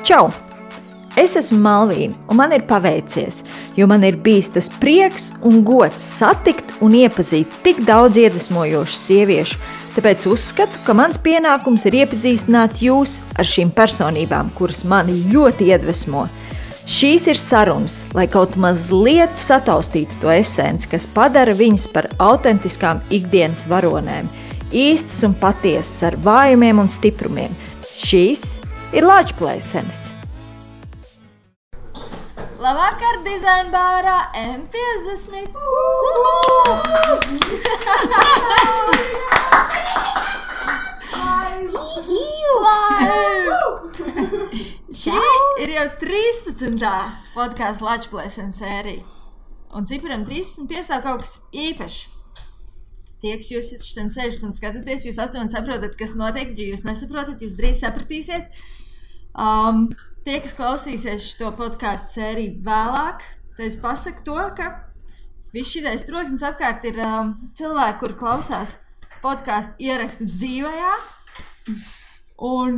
Čau! Es esmu Malvīna, un man ir paveicies, jo man ir bijis tas prieks un gods satikt un iepazīt tik daudz iedvesmojošu sieviešu, tāpēc uzskatu, ka mans pienākums ir iepazīstināt jūs ar šīm personībām, kuras mani ļoti iedvesmo. Šīs ir sarunas, lai kaut mazliet sataustītu to esenci, kas padara viņas par autentiskām ikdienas varonēm, īstas un patiesas ar vājumiem un stiprumiem. Šīs ir Lāčplēsenes. Labvakar, dizaina bārā M50! Šī ir jau 13. podkāstu Lāčplēsenes sērija. Un ciparam 13 piestāv kaut kas īpašs. Tie, kas jūs šodien sēžat un skatāties, jūs aptuveni saprotat, kas notiek, ja jūs nesaprotat, jūs drīz sapratīsiet. Tie, kas klausīsies šo podkāstu sēriju vēlāk, tad es pasaku to, ka viss šitais troksnis apkārt ir cilvēki, kuri klausās podkāstu ierakstu dzīvajā. Un,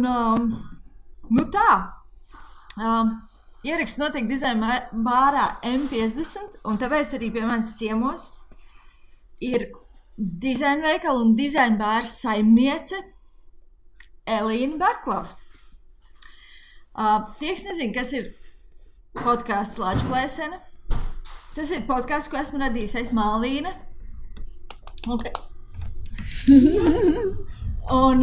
ieraksts notiek dizaina bārā M50, un tāpēc arī pie manis ciemos ir dizaina veikala un dizaina bāra saimniece Elīna Barklava. Tie, kas nezina, kas ir podkāsts Lāčplēsene, tas ir podkāsts, ko esmu radījusi es Malvīna. Okay. Un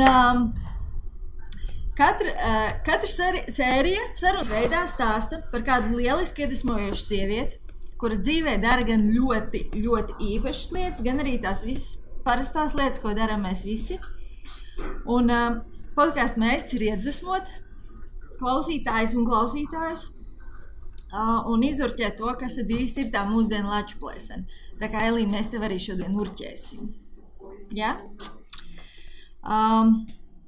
katra sērija sarunas veidā stāsta par kādu lielisku iedvesmojošu sievieti, kura dzīvē dara gan ļoti, ļoti īpašas lietas, gan arī tās visas parastās lietas, ko darām mēs visi. Un podkāstu mērķis ir iedvesmot klausītājus un klausītājus un izurķēt to, kas tad īsti ir tā mūsdienu Lāčplēsene. Tā kā, Elīna, mēs tev arī šodien urķēsim. Ja?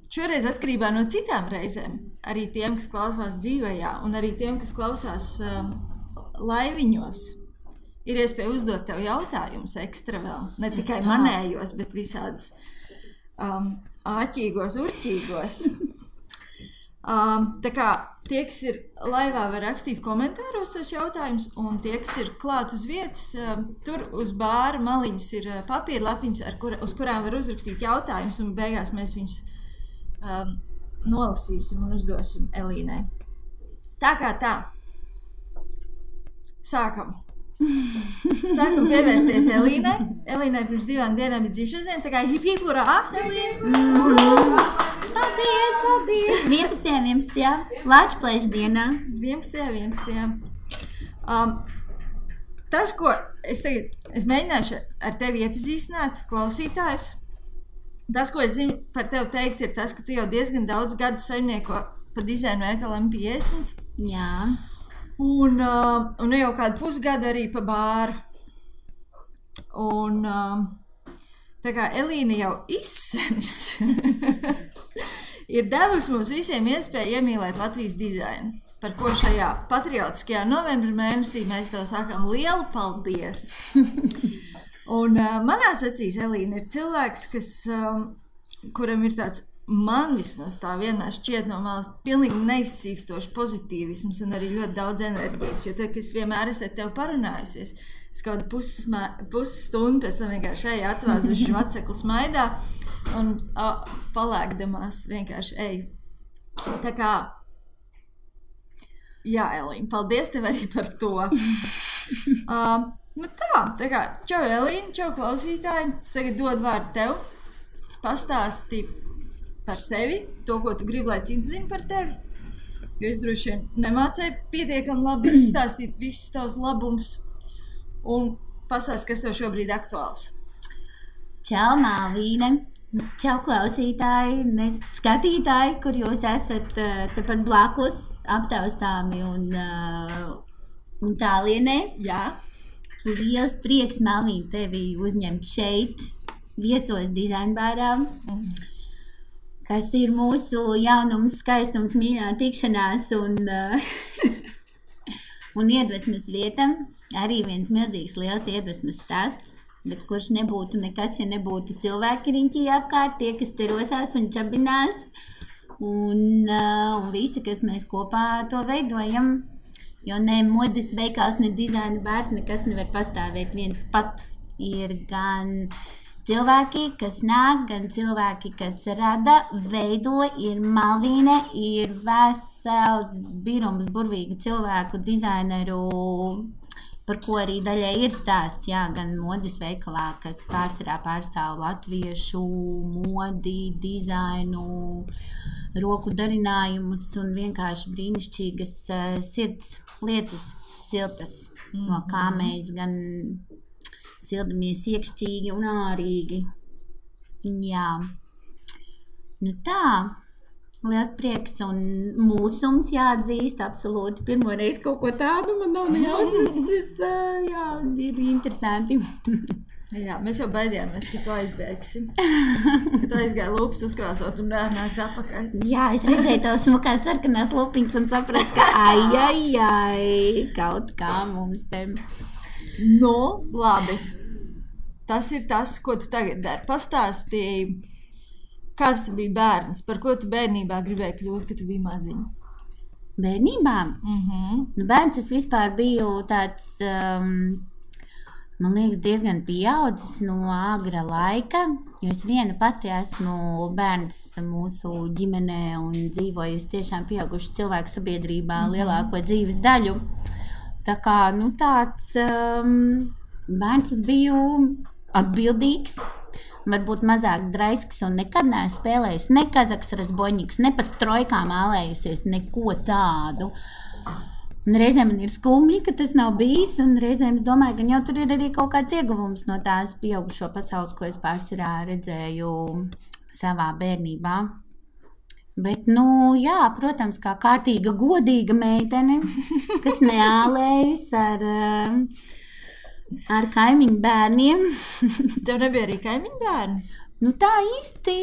Šoreiz atkarībā no citām reizēm, arī tiem, kas klausās dzīvajā, un arī tiem, kas klausās laiviņos, ir iespēja uzdot tev jautājumus ekstra vēl. Ne tikai manējos, bet visādus āķīgos, urķīgos. Tā kā tie, kas ir laivā, var rakstīt komentāros tos jautājumus, un tie, kas ir klāt uz vietas, tur uz bāra maliņas ir papīra lapiņas, uz kurām var uzrakstīt jautājumus, un beigās mēs viņus nolasīsim un uzdosim Elīnai. Tā kā tā. Sākam pievērsties Elīnai. Elīnai pirms 2 dienām ir dzimšanas diena, tā kā hip hip urā, Elīna! Paldies! 11. Lāčplēšu dienā. 11. Tas, ko es mēģināšu ar tevi iepazīstināt, klausītājus, tas, ko es zinu par tevi teikt, ir tas, ka tu jau diezgan daudz gadu saimnieko par dizainu veikalu M50. Jā. Un jau kādu pusgadu arī pa bāru. Un tā kā Elīna jau izsenis ir devusi mums visiem iespēju iemīlēt Latvijas dizainu, par ko šajā patriotiskajā novembra mēnesī mēs tev sakām lielu paldies. Un manās acīs Elīna ir cilvēks, kuram ir tāds, man vismaz tā vienmēr šķiet no malas pilnīgi neizsīkstošs pozitīvisms un arī ļoti daudz enerģijas, jo tad, kad es vienmēr esmu ar tevi parunājusies, es kaut pusstundu pēc tam vienkārši eju atvāzuši vecekli smaidā un palēkdamās vienkārši eju. Tā kā, jā, Elīna, paldies tev arī par to. Tā kā, čau Elīna, čau klausītāji, es tagad dodu vārdu tev, pastāsti par sevi, to, ko tu gribi, lai cits zina par tevi, jo es droši vien nemācēju pietiekami labi izstāstīt visus tavus labumus un pastāst, kas tev šobrīd aktuāls. Čau, Malvīne! Čau, klausītāji, skatītāji, kur jūs esat tepat blakus, aptaustāmi un tālienē. Jā. Liels prieks, Malvīne, tevi uzņemt šeit, viesos dizaina bārā. Kas ir mūsu jaunums, skaistums, mīļā tikšanās un iedvesmas vieta. Arī viens milzīgs liels iedvesmas stāsts, bet kurš nebūtu nekas, ja nebūtu cilvēki riņķī apkārt, tie, kas te rosās un čabinās un visi, kas mēs kopā to veidojam. Jo ne modes veikals, ne dizaina bārs, nekas nevar pastāvēt viens pats. Ir gan cilvēki, kas nāk, gan cilvēki, kas rada, veido, ir Malvīne, ir vesels birums burvīgu cilvēku, dizaineru, par ko arī daļai ir stāsts, jā, gan modes veikalā, kas pārsvarā pārstāv latviešu modi, dizainu, roku darinājumus un vienkārši brīnišķīgas sirds lietas, siltas, no kā mēs gan sildamies iekšķīgi un ārīgi. Jā. Nu tā, liels prieks un mūsums jāatzīst, absolūti. Pirmoreiz kaut ko tādu man nav nejausmas. Jā, ir interesanti. Jā, mēs jau baidījāmies, ka tu aizbēgsi. Ka tu aizgāji lūpas uzkrāsot un nāks apakaļ. Jā, es redzēju tavas smukās sarkanās lupiņas un sapratu, ka ai, kaut kā mums te. Nu, labi. Tas ir tas, ko tu tagad dari. Pastāstīji, kāds tu biji bērns, par ko tu bērnībā gribēji kļūt, kad tu biji maziņa? Bērnībā? Nu, bērns es vispār biju tāds, man liekas, diezgan pieaudzis no agra laika, jo es viena pati esmu bērns mūsu ģimenē un dzīvojusi tiešām pieauguši cilvēku sabiedrībā lielāko dzīves daļu. Tā kā, nu tāds bērns es biju atbildīgs, varbūt mazāk draisks un nekad neesmu spēlējis ne kazaks razboņiks, ne pa strojkām ālējusies, neko tādu. Un reizēm man ir skumji, ka tas nav bijis, un reizēm es domāju, ka jau tur ir arī kaut kāds ieguvums no tās pieaugušo pasaules, ko es pārsvarā redzēju savā bērnībā. Bet, nu, jā, protams, kā kārtīga, godīga meitene, kas neālējas ar kaimiņu bērniem. Tev nebija arī kaimiņu bērni? Nu, tā īsti,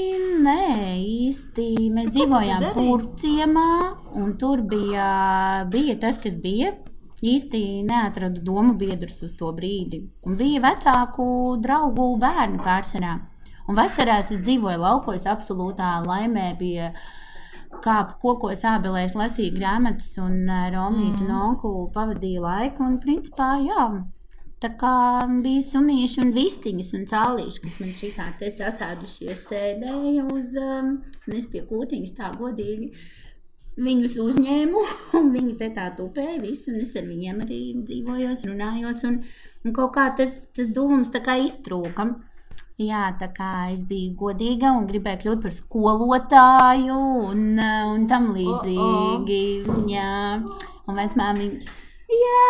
mēs dzīvojām Purciemā, un tur bija tas, kas bija. Īsti neatradu domu biedrus uz to brīdi. Un bija vecāku draugu bērni pārsvarā. Un vasarās es dzīvoju laukos absolūtā laimē, bija kāpu kokos ābelēs, lasīju grāmatas un Romītu un onku pavadīju laiku. Un principā, jā, tā kā bija sunīši un vistiņas un cālīši, kas man šitā te sasēdušies sēdēja uz, es pie kūtiņas tā godīgi viņus uzņēmu, un viņi te tā tupēja visu, un es ar viņiem arī dzīvojos, runājos, un kaut kā tas dulums tā kā iztrūka. Jā, tā kā es biju godīga un gribēju kļūt par skolotāju un tam līdzīgi. Jā, un vecmāmiņa, jā.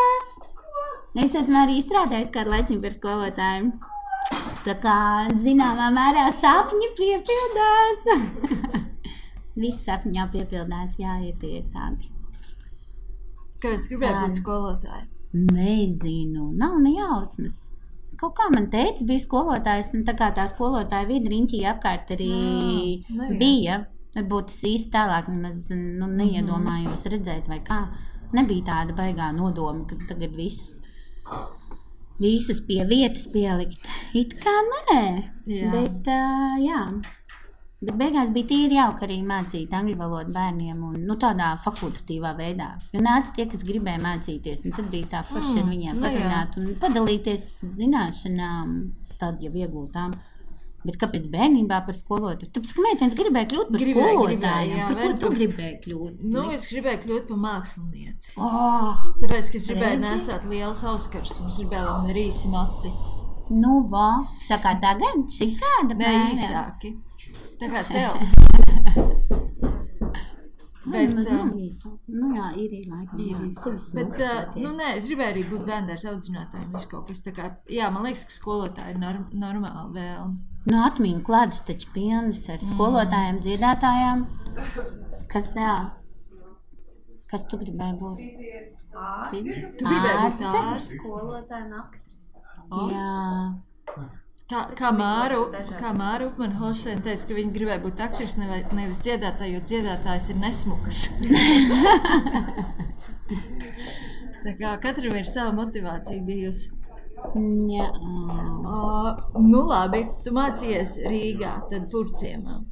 Es esmu arī strādājusi kādu laiciņu par skolotāju. Tā kā zināmā mērā sapņi piepildās. Visi sapņi jau piepildās, jā, tie ir tādi. Kāpēc gribēji būt skolotāji? Nezinu, nav nejausmas. Kaut kā man teica, bija skolotājs, un tā kā tā skolotāja vidi riņķī apkārt arī bija. Varbūt es īsti tālāk nemaz neiedomājos redzēt vai kā. Nebija tāda baigā nodoma, ka tagad visus pie vietas pielikt. It kā nē, bet jā. Bet beigās bija tīri jauka arī mācīt angļu valodu bērniem un tādā fakultatīvā veidā. Jo nāca tie, kas gribēja mācīties, un tad bija tā forši ar viņiem parunāt un padalīties zināšanām, tad jau iegūtām. Bet kāpēc bērnībā par skolotāju? Tāpēc, ka meitenes gribēja kļūt par skolotājiem. Par ko tu gribēji kļūt? Nu, es gribēju kļūt par mākslinieci. Tāpēc, ka es gribēju nesāt lielus auskarus un es gribēju, lai man ir īsi mati. Nu, tā kā tagad? Šī tāda ne, īsāki. Tā kā tev. Bet, nu jā, ir laikam. Bet, nē, es gribēju arī būt bērndārs audzinātājiem, visu kaut kas tā kā, jā, man liekas, ka skolotāji ir normāli vēlme. Nu, atmiņu kladus taču pilnas ar skolotājiem, dziedātājām. Kas tu gribēji būt? Tu gribēji būt ārste? Skolotāja un aktrise. Jā. Kā Māra Upmane-Holšteina teica, ka viņa gribēja būt aktrise, nevis dziedātāja, jo dziedātājs ir nesmukas. Tā kā katram ir sava motivācija bijusi. Jā. Nu labi, tu mācījies Rīgā, tad Purciemā.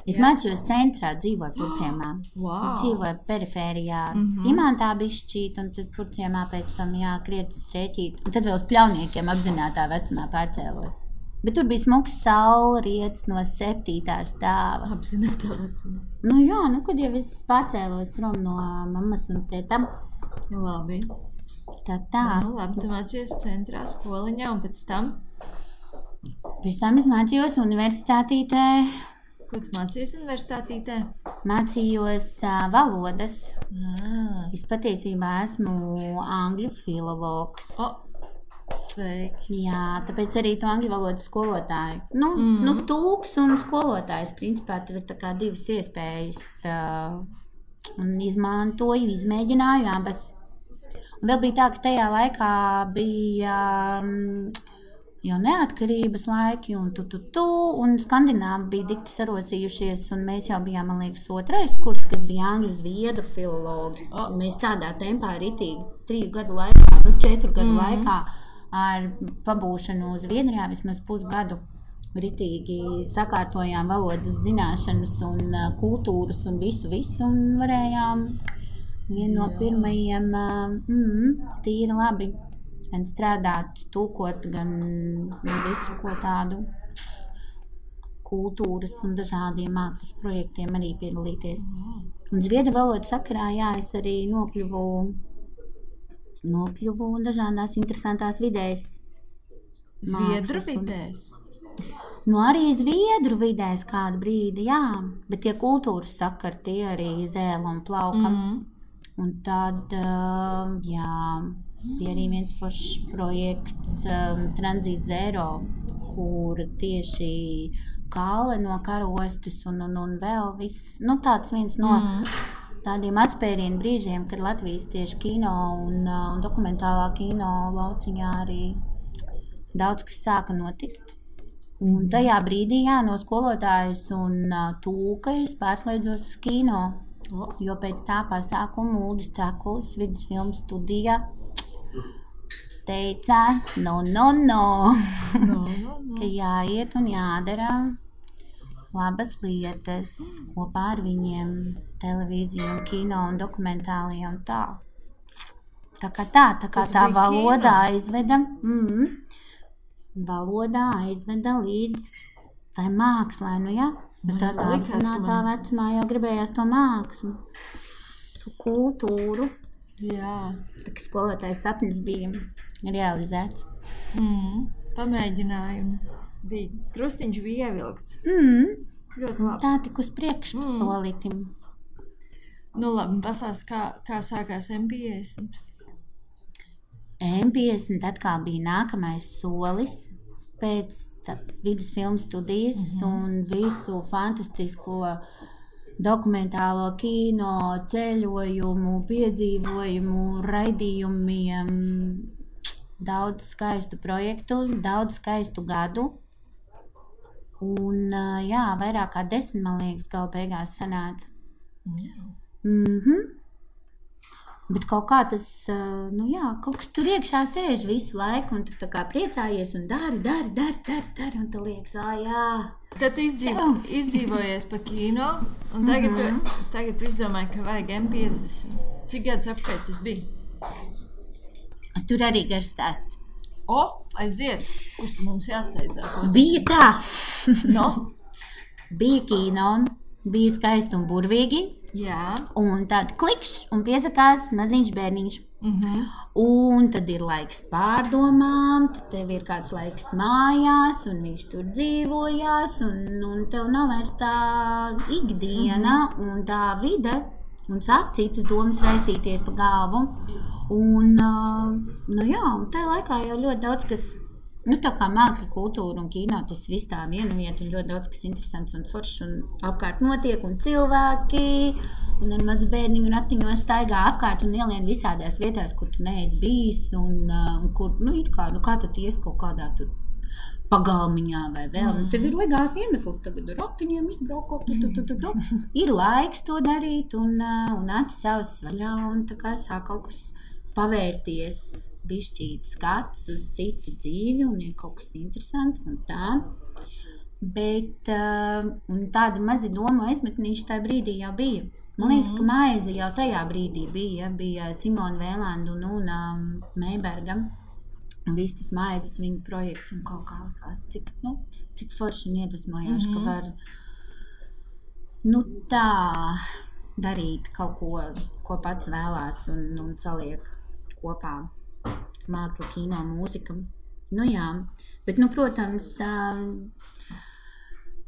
Es mācījos centrā, dzīvoju Purciemā. Wow. Dzīvoju perifērijā, Imantā bišķīt, un tad Purciemā pēc tam krietas rēķīt. Un tad vēl uz Pļauniekiem apzinātā vecumā pārcēlos. Bet tur bija smuks saulrietis no 7. stāva. Apzinātā vecumā. Nu jā, kad jau es pārcēlos prom no mammas un tētam. Labi. Tā. Nu labi, tu mācījies centrā skoliņā un pēc tam? Pēc tam es mācījos universitātītē. Ko tu mācījies universitātītē? Mācījos valodas. Es patiesībā esmu angļu filologs. Sveiki. Jā, tāpēc arī tu angļu valodas skolotāju. Nu, tūks un skolotājs. Principā tur ir tā kā divas iespējas. Un izmantoju, izmēģināju abas. Un vēl bija tā, ka tajā laikā bija jau neatkarības laiki un un Skandināvi bija dikti sarosījušies, un mēs jau bijām, man liekas, 2. kurs, kas bija angļu zviedru filologi. Mēs tādā tempā ritīgi 3 gadu laikā, 4 gadu laikā ar pabūšanu Zviedrijā vismaz pusgadu ritīgi sakārtojām valodas zināšanas un kultūras un visu, un varējām vienu no pirmajiem tīri labi gan strādāt, tulkot, gan visu ko tādu kultūras un dažādiem mākslas projektiem arī piedalīties. Un zviedru valodas sakarā, es arī nokļuvu dažādās interesantās vidēs. Zviedru vidēs? Nu, arī zviedru vidēs kādu brīdi, bet tie kultūras sakari, tie arī zēla un plauka. Un tad, bija arī viens foršs projekts Tranzīts Zero, kur tieši kāle no karostes un vēl viss, tāds viens no tādiem atspērienu brīžiem, kad Latvijas tieši kino un dokumentālā kino lauciņā arī daudz kas sāka notikt. Un tajā brīdī, no skolotājas un tūka es pārslēdzos uz kino, jo pēc tā pasākuma Uldis Cakulis vidusfilmu studijā teica, ka jāiet un jādara labas lietas kopā ar viņiem, televīziju un kino un dokumentālajie un tā. Tā kā valodā aizveda, līdz tai mākslai, bet tādā apzinātā vecumā jau gribējās to mākslu, to kultūru. Jā. Tā kā skolotājs sapnis bija realizēts. Pamēģinājumi. Krustiņš bija ievilkts. Ļoti labi. Tā tik uz priekšu solītim. Nu labi, pasāst, kā sākās M50? M50 atkal bija nākamais solis pēc vidusfilmu studijas un visu fantastisko dokumentālo kino, ceļojumu, piedzīvojumu, raidījumiem, daudz skaistu projektu, daudz skaistu gadu. Un, vairāk kā 10, man liekas, gala beigās sanāca. Bet kaut kā tas, kaut kas tur iekšā sēž visu laiku, un tu tā kā priecājies un dari, un tu liekas, Tad tu izdzīvojies pa kino, un tagad tu izdomāji, ka vajag M50. Cik gadus apkārt tas bija? Tur arī garš stāsts. Aiziet, kurš tu mums jāsteidzās? Bija tā. Bija kino, bija skaisti un burvīgi. Jā. Un tad klikšs un piesakās maziņš bērniņš. Un tad ir laiks pārdomām, tad tev ir kāds laiks mājās, un viņš tur dzīvojās, un tev nav vairs tā ikdiena un tā vide, un sāk citas domas raisīties pa galvu. Un, un tajā laikā jau ļoti daudz kas, tā kā māksla, kultūra un kino, tas viss tā viena vieta, un ļoti daudz kas interesants un foršs, un apkārt notiek, un cilvēki, un ar mazu bērniņu ratiņos staigā apkārt un ielien visādās vietās, kur tu neesi bijis, un kur, kā tu ies kaut kādā tur pagalmiņā vai vēl. Tev ir legās iemesls tagad ar ratiņiem izbraukot, ir laiks to darīt, un acis savas vaļā, un tā kā sāk kaut kas pavērties, bišķīt skats uz citu dzīvi, un ir kaut kas interesants un tā. Bet un tāda mazi domu aizmetnīši tajā brīdī jau bija. Man liekas, ka maize jau tajā brīdī bija Simona Vēlanda un Una Meiberga. Un viss tas maizes viņa projekts un kaut kā likās, cik forši un iedvesmojoši, ka var tā darīt kaut ko pats vēlās un saliek kopā māksla, kino, mūzika. Jā, bet, protams,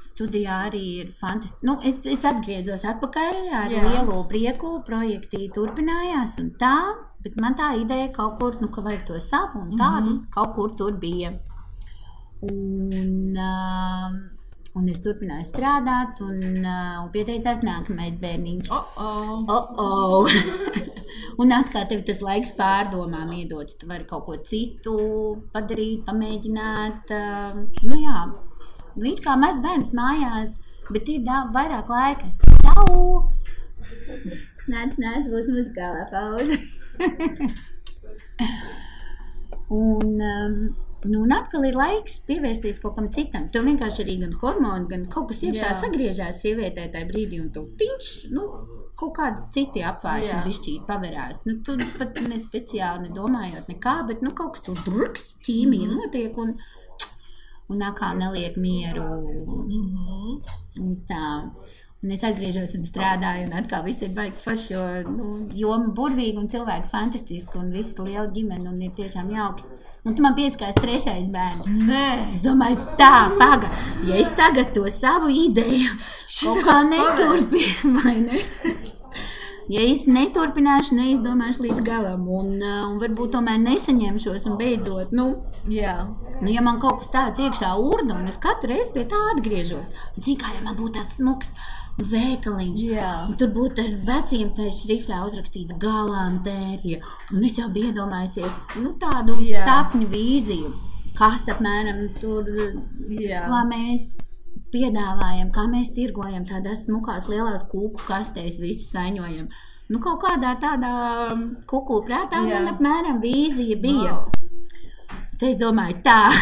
studijā arī ir fantastiski. Es atgriezos atpakaļ ar lielu prieku, projekti turpinājās un tā, bet man tā ideja kaut kur, ka vajag to savu un tādu, kaut kur tur bija. Un es turpināju strādāt un pieteicās nākamais bērniņš. Un atkal tev tas laiks pārdomām iedots. Tu vari kaut ko citu padarīt, pamēģināt. Jā. It kā maz bērns mājās, bet ir vairāk laika. Čau! Nāc, būs muzikālā pauze. Un atkal ir laiks pievērsties kaut kam citam. Tev vienkārši arī gan hormoni, gan kaut kas iekšā sagriežās sievietē tajā brīdī, un tev kaut kādi citi apvāršana bišķīt paverās. Tu pat ne speciāli nedomājot nekā, bet kaut kas tur druks, ķīmija notiek, un atkal neliek mieru. Un tā. Un es atgriežos un strādāju, un atkal viss ir baigi forši, jo joma burvīga un cilvēki fantastiski, un viss liela ģimene, un ir tiešām jauki. Un tu man pieskās 3. bērns. Nē. Es domāju, paga, ja es tagad to savu ideju kaut kā neturpinu, vai ne? Ja es neturpināšu, neizdomāšu līdz galam, un varbūt tomēr nesaņemšos un beidzot, ja man kaut kas tāds iekšā urda, un es katru reizi pie tā atgriežos, un zinu, kā, ja man būtu tāds smuks veikaliņš, un tur būtu ar veciem tajā šriftā uzrakstīts galantērija, un es jau biju iedomājusies, tādu sapņu vīziju, kas apmēram tur, kā mēs piedāvājam, kā mēs tirgojam tādās smukās lielās kūku kastēs, visu saņojam. Kaut kādā tādā kukulu prātā man apmēram vīzija bija. Tad es domāju, tā,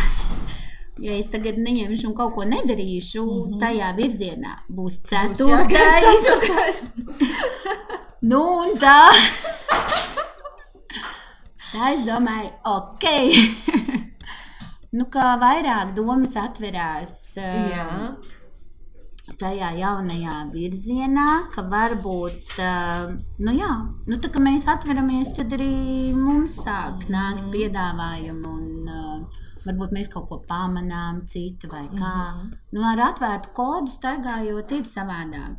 ja es tagad neņemšu un kaut ko nedarīšu, tajā virzienā būs 4. Un tā. Tā es domāju, kā vairāk domas atverās tajā jaunajā virzienā, ka varbūt, tā kā mēs atveramies, tad arī mums sāk nākt piedāvājumu un varbūt mēs kaut ko pamanām citu vai kā. Ar atvērtu kodu staigājot ir savādāk.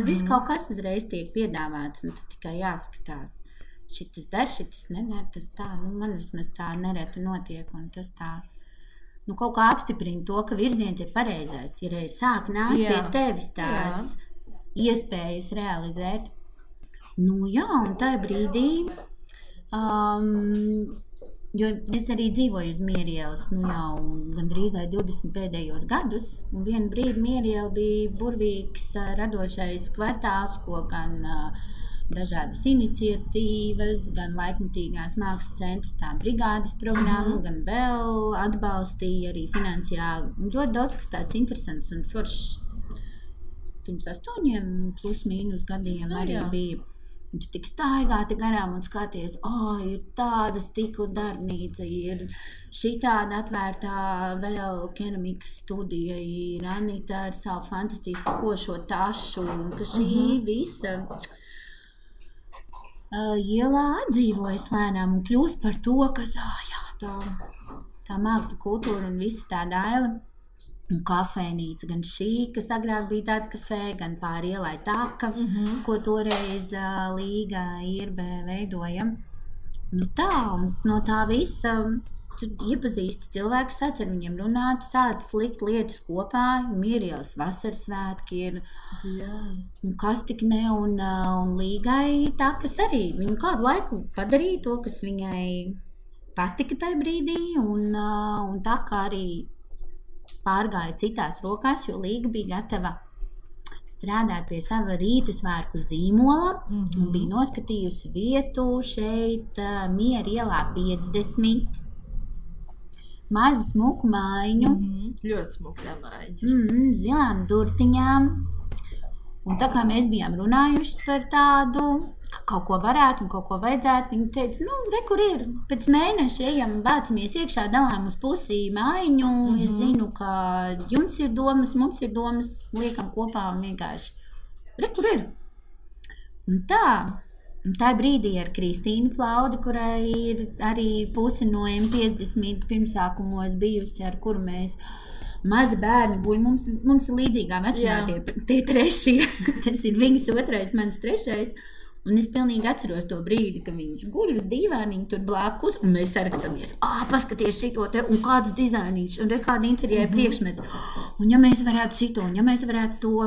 Viss kaut kas uzreiz tiek piedāvāts un tad tikai jāskatās. Šitas dar, šitas nedar, tas tā, man vismaz tā nereti notiek un tas tā. Kaut kā apstiprina to, ka virziens ir pareizais. Ja reiz sāk nākt pie tevis tās iespējas realizēt. Un tajā brīdī, jo es arī dzīvoju uz Mierielas, jau gandrīz 20 pēdējos gadus, un vienu brīdi Mieriela bija burvīgs radošais kvartāls, ko gan dažādas iniciatīvas, gan laikmatīgās mākslas centra tā brigādes programma, gan vēl atbalstīja arī finansiāli. Un ļoti daudz, kas tāds interesants un foršs pirms 8 plus mīnus gadiem arī bija. Un tu tik staigāti garām un skaties, ir tāda stikla darbnīca, ir šitāda atvērtā vēl keramikas studija, ir Anita ar savu fantastisku košo tašu, un ka šī visa ielā atdzīvojas lēnām un kļūst par to, kas, tā māksla kultūra un visa tā daila. Un kafēnīca, gan šī, kas agrāk bija tāda kafē, gan pāri ielai taka, ko toreiz Līga Irbe veidoja. Tā, un no tā visa tu iepazīsti cilvēkus, sāc ar viņiem runāt, sāc likt lietas kopā, Mierielas vasaras svētki ir, kas tik ne, un Līgai tā, kas arī viņu kādu laiku padarīja to, kas viņai patika tajā brīdī, un tā kā arī pārgāja citās rokās, jo Līga bija gatava strādāt pie sava rītasvērku zīmola, un bija noskatījusi vietu šeit Miera ielā 50. mazu smuku mājiņu. Ļoti smuka tā mājiņa. Zilām durtiņām. Un tā kā mēs bijām runājuši par tādu, ka kaut ko varētu un kaut ko vajadzētu, viņi teica, kur ir, pēc mēneša ejam, bācamies iekšā, dalām uz pusī mājiņu, es zinu, ka jums ir domas, mums ir domas, liekam kopā un vienkārši, kur ir. Un tā brīdī ar Kristīnu Plaudi, kurai ir arī pusi no M50 pirmsākumos bijusi, ar kuru mēs mazi bērni guļ, mums ir līdzīgā vecumā tie trešie, tas ir viņas otrais, mans trešais, un es pilnīgi atceros to brīdi, ka viņš guļ uz dīvāniņu tur blakus, un mēs sarakstāmies, paskaties šito te, un kāds dizainiņš, un kādi interjeri priekšmeti, un ja mēs varētu šito, un ja mēs varētu to,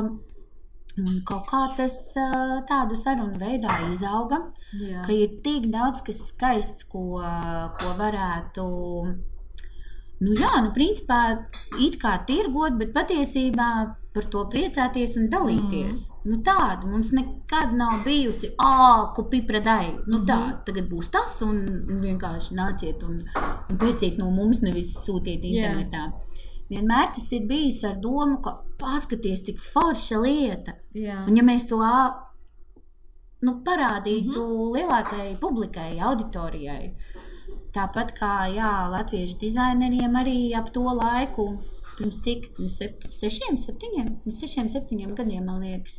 un kaut kā tas tādu sarunu veidā izauga, ka ir tik daudz, kas skaists, ko varētu, principā it kā tirgot, bet patiesībā par to priecāties un dalīties. Tāda mums nekad nav bijusi, ko pipradai, tagad būs tas un vienkārši nāciet un pērciet no mums, nevis sūtiet internetā. Vienmēr tas ir bijis ar domu, ka paskaties, cik forša lieta. Un ja mēs to parādītu lielākai publikai, auditorijai, tāpat kā latviešu dizaineriem arī ap to laiku, pirms cik, 6-7 gadiem, man liekas,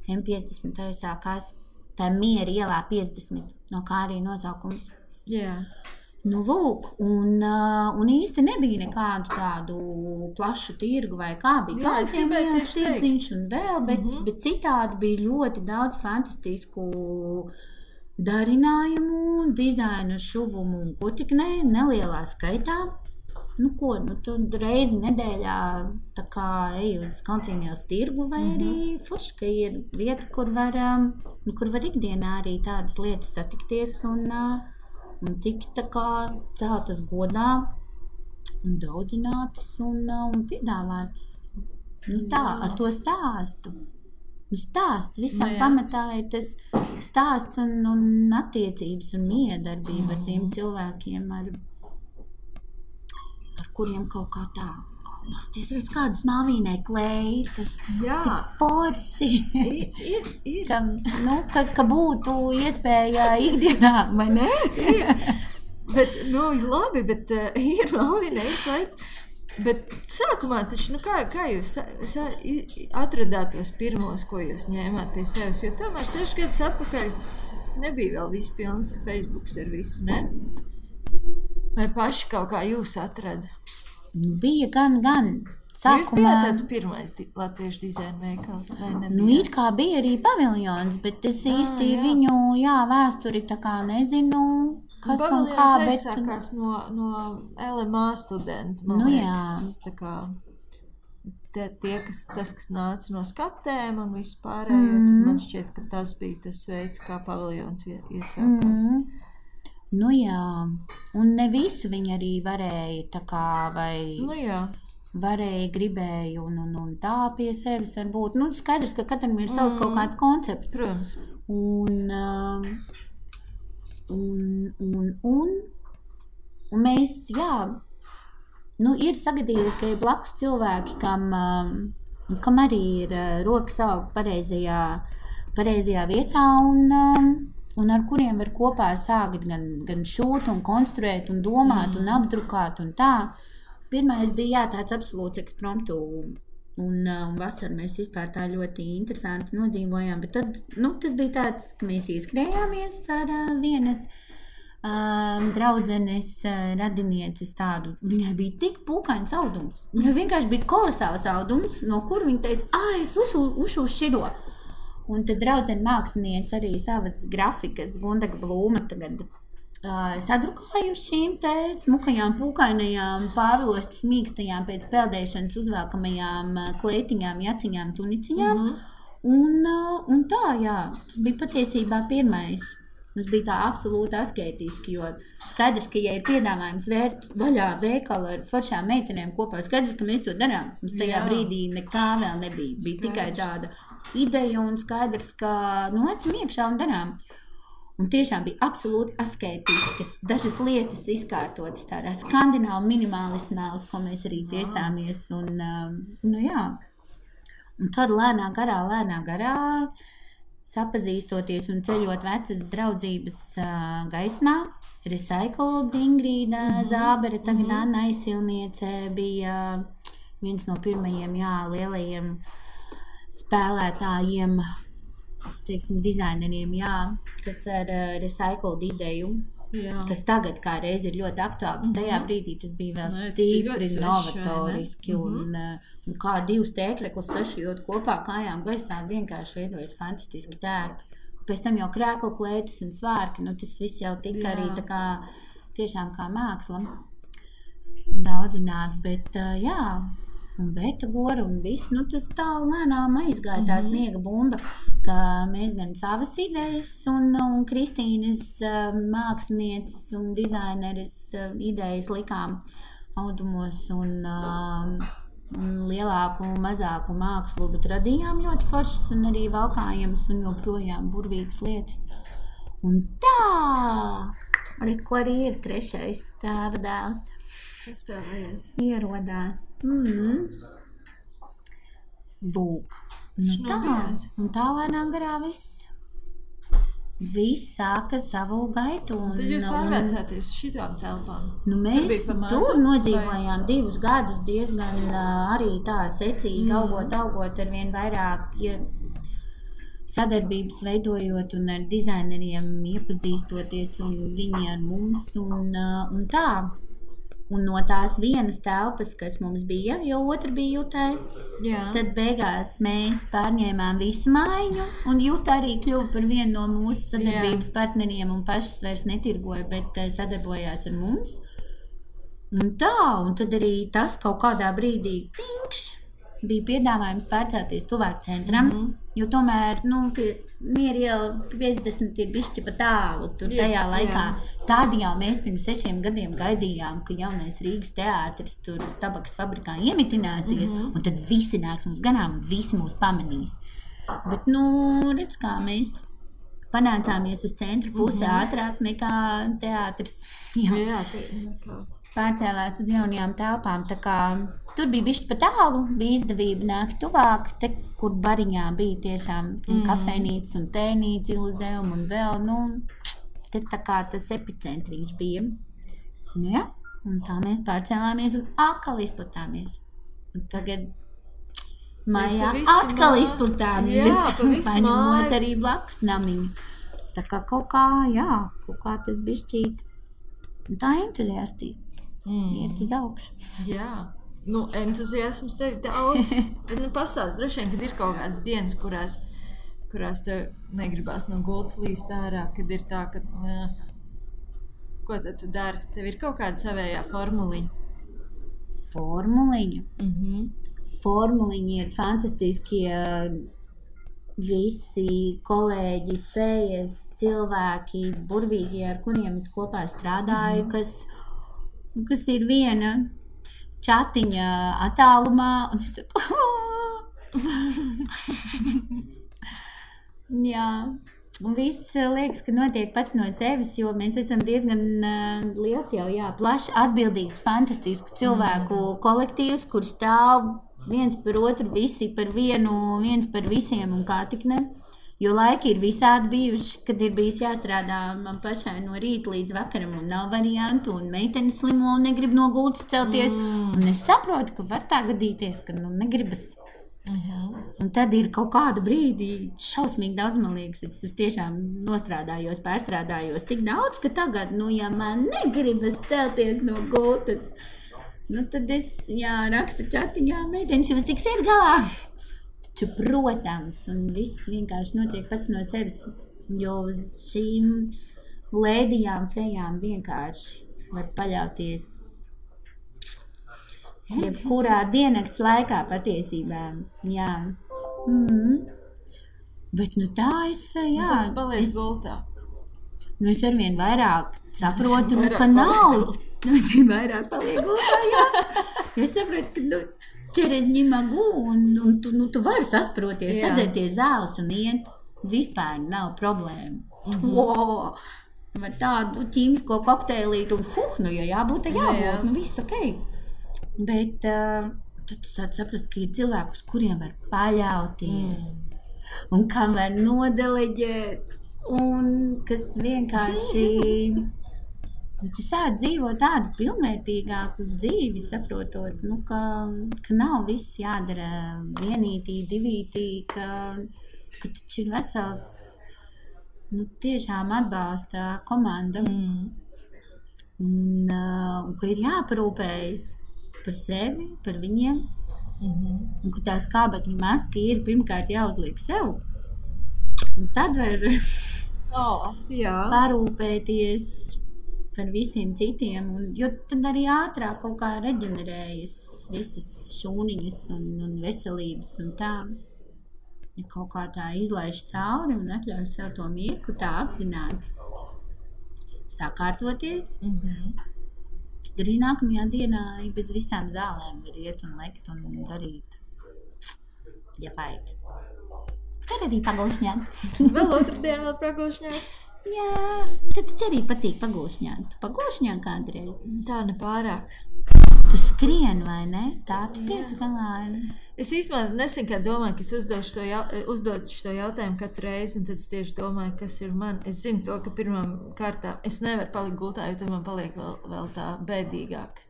M50 sākās, tā Miera ielā 50, no kā arī nosaukums. Lūk, un īsti nebija nekādu tādu plašu tirgu vai kā bija. Kādiem viens tirdziņš un vēl, bet citādi bija ļoti daudz fantastisku darinājumu, dizainu, šuvumu un ko tik nelielā skaitā. Tu reizi nedēļā tā kā ej uz Kalncīņās tirgu vai arī forši, ka ir vieta, kur var ikdienā arī tādas lietas satikties un tikt tā kā celtas godā un daudzinātas un piedāvātas. Tā, ar to stāstu. Stāsts visam pamatā ir tas stāsts un attiecības un miedarbība ar tiem cilvēkiem, ar kuriem kaut kā tā. Pasties, redz, kādas malvīnai klēji, tas tik forši. Ir. Ka būtu iespēja ikdienā, vai ne? Bet, labi, bet ir malvīnai klējas. Bet sākumā taču, kā jūs atradāt tos pirmos, ko jūs ņēmāt pie sevis? Jo tomēr 6 gadus atpakaļ nebija vēl viss pilns Facebooks ar visu, ne? Vai paši kaut kā jūs atrada? Bija gan. Sākumā... Jūs bijāt tāds pirmais latviešu dizaina veikals, vai nebija? Ir kā bija arī paviljons, bet es īsti viņu, vēsturi tā kā nezinu, kas un kā, bet... Paviljons aizsākās no LMA studentu, man liekas. Tā kā kas nāca no skatēm un visu pārējo, tad man šķiet, ka tas bija tas veids, kā paviljons iesākās. Un ne visu viņi arī varēja tā kā, vai varēja, gribēja un tā pie sevis varbūt. Skaidrs, ka katram ir savs kaut kāds koncepts. Protams. Un mēs, ir sagadījies, ka ir blakus cilvēki, kam arī ir rokas aug pareizajā vietā un ar kuriem var kopā sākt gan šūt un konstruēt un domāt un apdrukāt un tā. Pirmais bija tāds absolūts ekspromptu un vasaru mēs vispār tā ļoti interesanti nodzīvojām, bet tad, tas bija tāds, ka mēs ieskrējāmies ar vienas draudzenes radinieces tādu. Viņai bija tik pūkains audums. Viņai vienkārši bija kolosāls audums, no kur viņa teica, es ušu širo. Un tad draudzene māksliniece arī savas grafikas, Gundaga Blūma tagad sadrukāju šīm te smukajām, pūkainajām, pāvilostas mīkstajām pēc peldēšanas uzvelkamajām klētiņām, jaciņām, tuniciņām. Un tā, tas bija patiesībā pirmais. Tas bija tā absolūti asketiski, jo skaidrs, ka, ja ir piedāvājums vērt vaļā veikalu ar foršām meitenēm kopā, skaidrs, ka mēs to darām. Mums tajā brīdī nekā vēl nebija. Bija tikai tāda ideja un skaidrs, ka, lecam iekšā un darām. Un tiešām bija absolūti asketiskas, dažas lietas izkārtotas tādā skandināvu minimalismā, uz ko mēs arī tiecāmies. Un, jā. Un tad lēnā garā, sapazīstoties un ceļot vecas draudzības gaismā, Recycled Ingrīda Zābere, tagad Anna Aizsilniece bija viens no pirmajiem, lielajiem spēlētājiem, teiksim, dizaineriem, kas ar Recycled ideju, kas tagad kā reiz ir ļoti aktuāli, bet tajā brīdī tas bija vēl stipri novatoriski un kā divus tēkļekus sašujot kopā kājām gaisā vienkārši veidojas fantastiski tērpi. Pēc tam jau krēkla klētis un svārki, tas viss jau tika arī tā kā, tiešām kā māksla daudzināts, bet un beta gora un viss, tas tā lēnām aizgāja tā sniega bumba, ka mēs gan savas idejas un Kristīnas mākslinieces un dizaineres idejas likām audumos un lielāku un mazāku mākslu, bet radījām ļoti foršas un arī valkājams un joprojām burvīgas lietas. Un tā, ko arī ir trešais tēva dēls. Kas spēlējies? Ierodās. Lūk. Un tā lēnā garā viss sāka savu gaitu. Tad jūs pārvēcēties šitām telpām? Mēs tur nodzīvojām 2 gadus diezgan arī tā secīgi, augot ar vien vairāk sadarbības veidojot un ar dizaineriem iepazīstoties un viņi ar mums un tā. Un no tās vienas telpas, kas mums bija, jo otra bija Jutai, tad beigās mēs pārņēmām visu mājiņu, un Juta arī kļuva par vienu no mūsu sadarbības partneriem un pašas vairs netirgoja, bet sadarbojās ar mums. Un tā, un tad arī tas kaut kādā brīdī bija piedāvājums pārcelties tuvāk centram, jo tomēr, Mieriela 50 ir bišķi pa tālu tur tajā laikā. Tad jau mēs pirms 6 gadiem gaidījām, ka jaunais Rīgas teātris tur tabakas fabrikā iemitināsies, un tad visi nāks mums ganām un visi mūs pamanīs. Bet, redz, kā mēs panācāmies uz centru pusi ātrāk nekā teātris. Pārcēlās uz jaunajām telpām, tā kā tur bija bišķi pa tālu, bija izdevība nākt tuvāk, te, kur bariņā bija tiešām kafejnīca un tēnīca, Iluzēum un vēl, te tā kā tas epicentriņš bija. Un tā mēs pārcēlāmies un atkal izplatāmies. Un tagad mājā atkal izplatāmies, paņemot arī blakus namiņu. Tā kā kaut kā tas bišķīt. Un tā entuziastīs. Iet uz augšu. Jā, entuziasms tev daudz, bet pastāst, droši vien, kad ir kaut kādas dienas, kurās tev negribās no gultas līst ārā, kad ir tā, ka, ko tad tu dari? Tev ir kaut kāda savējā formuliņa? Formuliņa? Formuliņi ir fantastiskie visi kolēģi, fejas, cilvēki, burvīgi, ar kuriem es kopā strādāju, kas ir viena čatiņa attālumā, un es saku, un viss liekas, ka notiek pats no sevis, jo mēs esam diezgan liels jau, plaši atbildīgs, fantastisku cilvēku kolektīvs, kur stāv viens par otru, visi par vienu, viens par visiem un kā tik ne. Jo laiki ir visādi bijuši, kad ir bijis jāstrādā man pašai no rīta līdz vakaram un nav variantu, un meitene slimo un negrib no gultas celties. Un es saprotu, ka var tā gadīties, ka negribas. Un tad ir kaut kādu brīdi šausmīgi daudz, man liekas, es tiešām nostrādājos, pārstrādājos tik daudz, ka tagad, ja man negribas celties no gultas, tad es, rakstu čatiņā, meitenes, jūs tiksiet galā. Taču, protams, un viss vienkārši notiek pats no sevis, jo uz šīm lēdijām, fejām vienkārši var paļauties jebkurā diennakts laikā patiesībā, Bet, tā es, tad tu paliec gultā. Es arvien vairāk saprotu, ka nav. Es vairāk paliek gultā, Es saprotu, ka, через не могу, un tu vari sasproties, sadzerties zāles un iet. Vispār nav problēma. Var tādu ķīmisko kokteilītu un nu, ja jābūt, tad jābūt, nu viss ok. Bet tad tu sāc saprast, ka ir cilvēki, uz kuriem var paļauties un kam var nodeleģēt un kas vienkārši, tu sāc dzīvot tādu pilnvērtīgāku dzīvi, saprotot, nu, ka nav viss jādara vienītī, divītī, ka taču ir vesels, nu, tiešām atbalsta komanda un ka ir jāparūpējas par sevi, par viņiem un ka tā skābekļa maska ir pirmkārt jāuzliek sev un tad var parūpēties par visiem citiem, jo tad arī ātrāk kaut kā reģenerējas visas šūniņas un veselības un tā. Ja kaut kā tā izlaiž cauri un atļauj sev to mirkli tā apzināti sakārtoties, tad arī nākamajā dienā bez visām zālēm var iet un lekt un darīt, ja vajag. Tad arī pagūšņāt. Vēl otrdien vēl pagūšņāt? Jā, tad taču arī patīk pagūšņāt. Tu pagūšņā kādreiz? Tā nepārāk. Tu skrien, vai ne? Tā tu tiec galā ar... Es īstenībā nesen kā domāju, ka es uzdošu to jautājumu katru reizi, un tad es tieši domāju, kas ir man. Es zinu to, ka pirmām kārtām es nevaru palikt gultā, jo tad man paliek vēl tā bēdīgāk.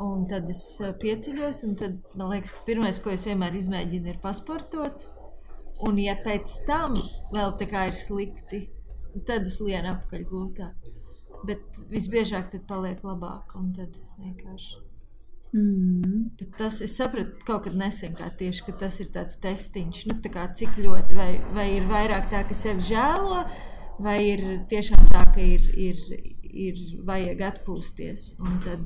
Un tad es pieceļos, un tad man liekas, ka pirmais, ko es vienmēr izmēģinu, ir pasportot. Un ja pēc tam vēl tā kā ir slikti, tad es lienu apakaļ gultā. Bet visbiežāk tad paliek labāk, un tad vienkārši. Bet tas, es sapratu kaut kad nesen kā tieši, ka tas ir tāds testiņš, nu tā kā cik ļoti, vai ir vairāk tā, ka sevi žēlo, vai ir tiešām tā, ka ir vajag atpūsties. Un tad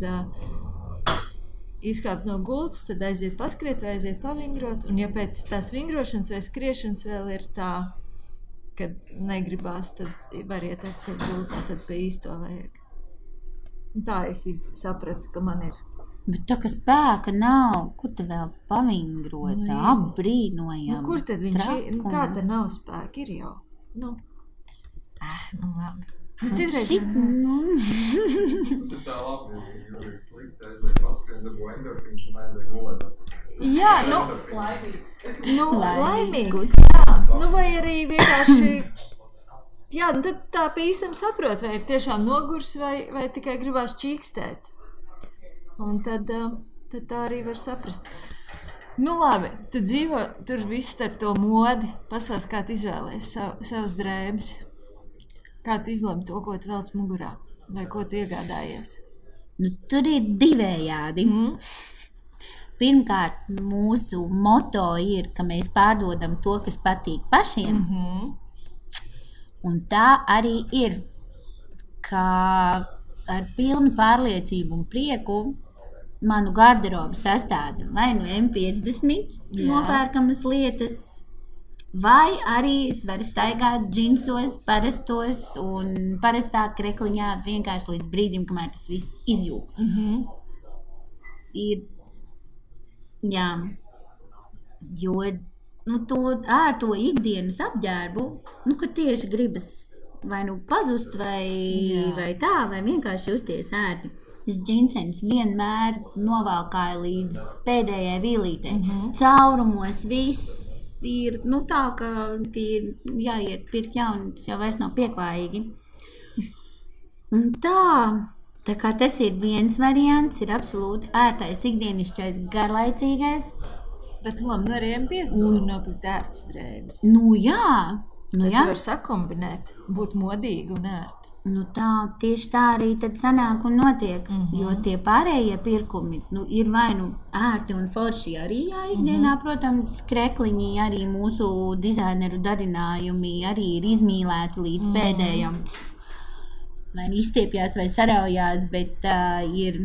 izkāpt no gultas, tad aiziet paskriet vai aiziet pavingrot, un ja pēc tās vingrošanas vai skriešanas vēl ir tā, kad negribās, tad var iet apkārt gultā, tad pie īsto vajag. Un tā es sapratu, ka man ir. Bet tā, ka spēka nav, kur te vēl pavingrot, apbrīnojam. Nu, kur tad viņš ir? Kā te nav spēka? Ir jau. Nu labi. Nu, Tas ir tā labi, jo ir slikti, aiziet paskrien, dabū endorfīns un aiziet gulēt. Jā, laimīgs. Jā, nu vai arī vienkārši, jā, nu tad tā pa īstam saprot, vai ir tiešām nogurs vai tikai gribās čīkstēt. Un tad tā arī var saprast. Nu labi, tu dzīvo tur viss starp to modi, pasās, kā tu izvēlējies savus drēbes. Kā tu izlemi to, ko tu velc mugurā? Vai ko tu iegādājies? Nu, tur ir divējādi. Pirmkārt, mūsu moto ir, ka mēs pārdodam to, kas patīk pašiem. Un tā arī ir, ka ar pilnu pārliecību un prieku manu garderobu sastāda vai nu M50 nopērkamas lietas, vai arī es varu staigāt džinsos, parastos un parastā krekliņā vienkārši līdz brīdim, kamēr tas viss izjūg. Ir, jā, jo ar to ikdienas apģērbu, ka tieši gribas vai nu pazust, vai tā, vai vienkārši justies ērti. Džinsens vienmēr novalkāja līdz pēdējai vīlītei. Caurumos viss ir, tā, ka ir jāiet pirkt jauni, tas jau vairs nav pieklājīgi. Un tā kā tas ir viens variants, ir absolūti ērtais, ikdienišķais, garlaicīgais. Bet, labi, arī M50 var nopirkt ērtas drēbes. Jā. Tad tu var sakombinēt, būt modīgi un ērti. Tieši tā arī tad sanāk un notiek, jo tie pārējie pirkumi ir vai nu ērti un forši arī ikdienā, protams, krekliņi, arī mūsu dizaineru darinājumi arī ir izmīlēti līdz pēdējam. Vai izstiepjās vai saraujās, bet ir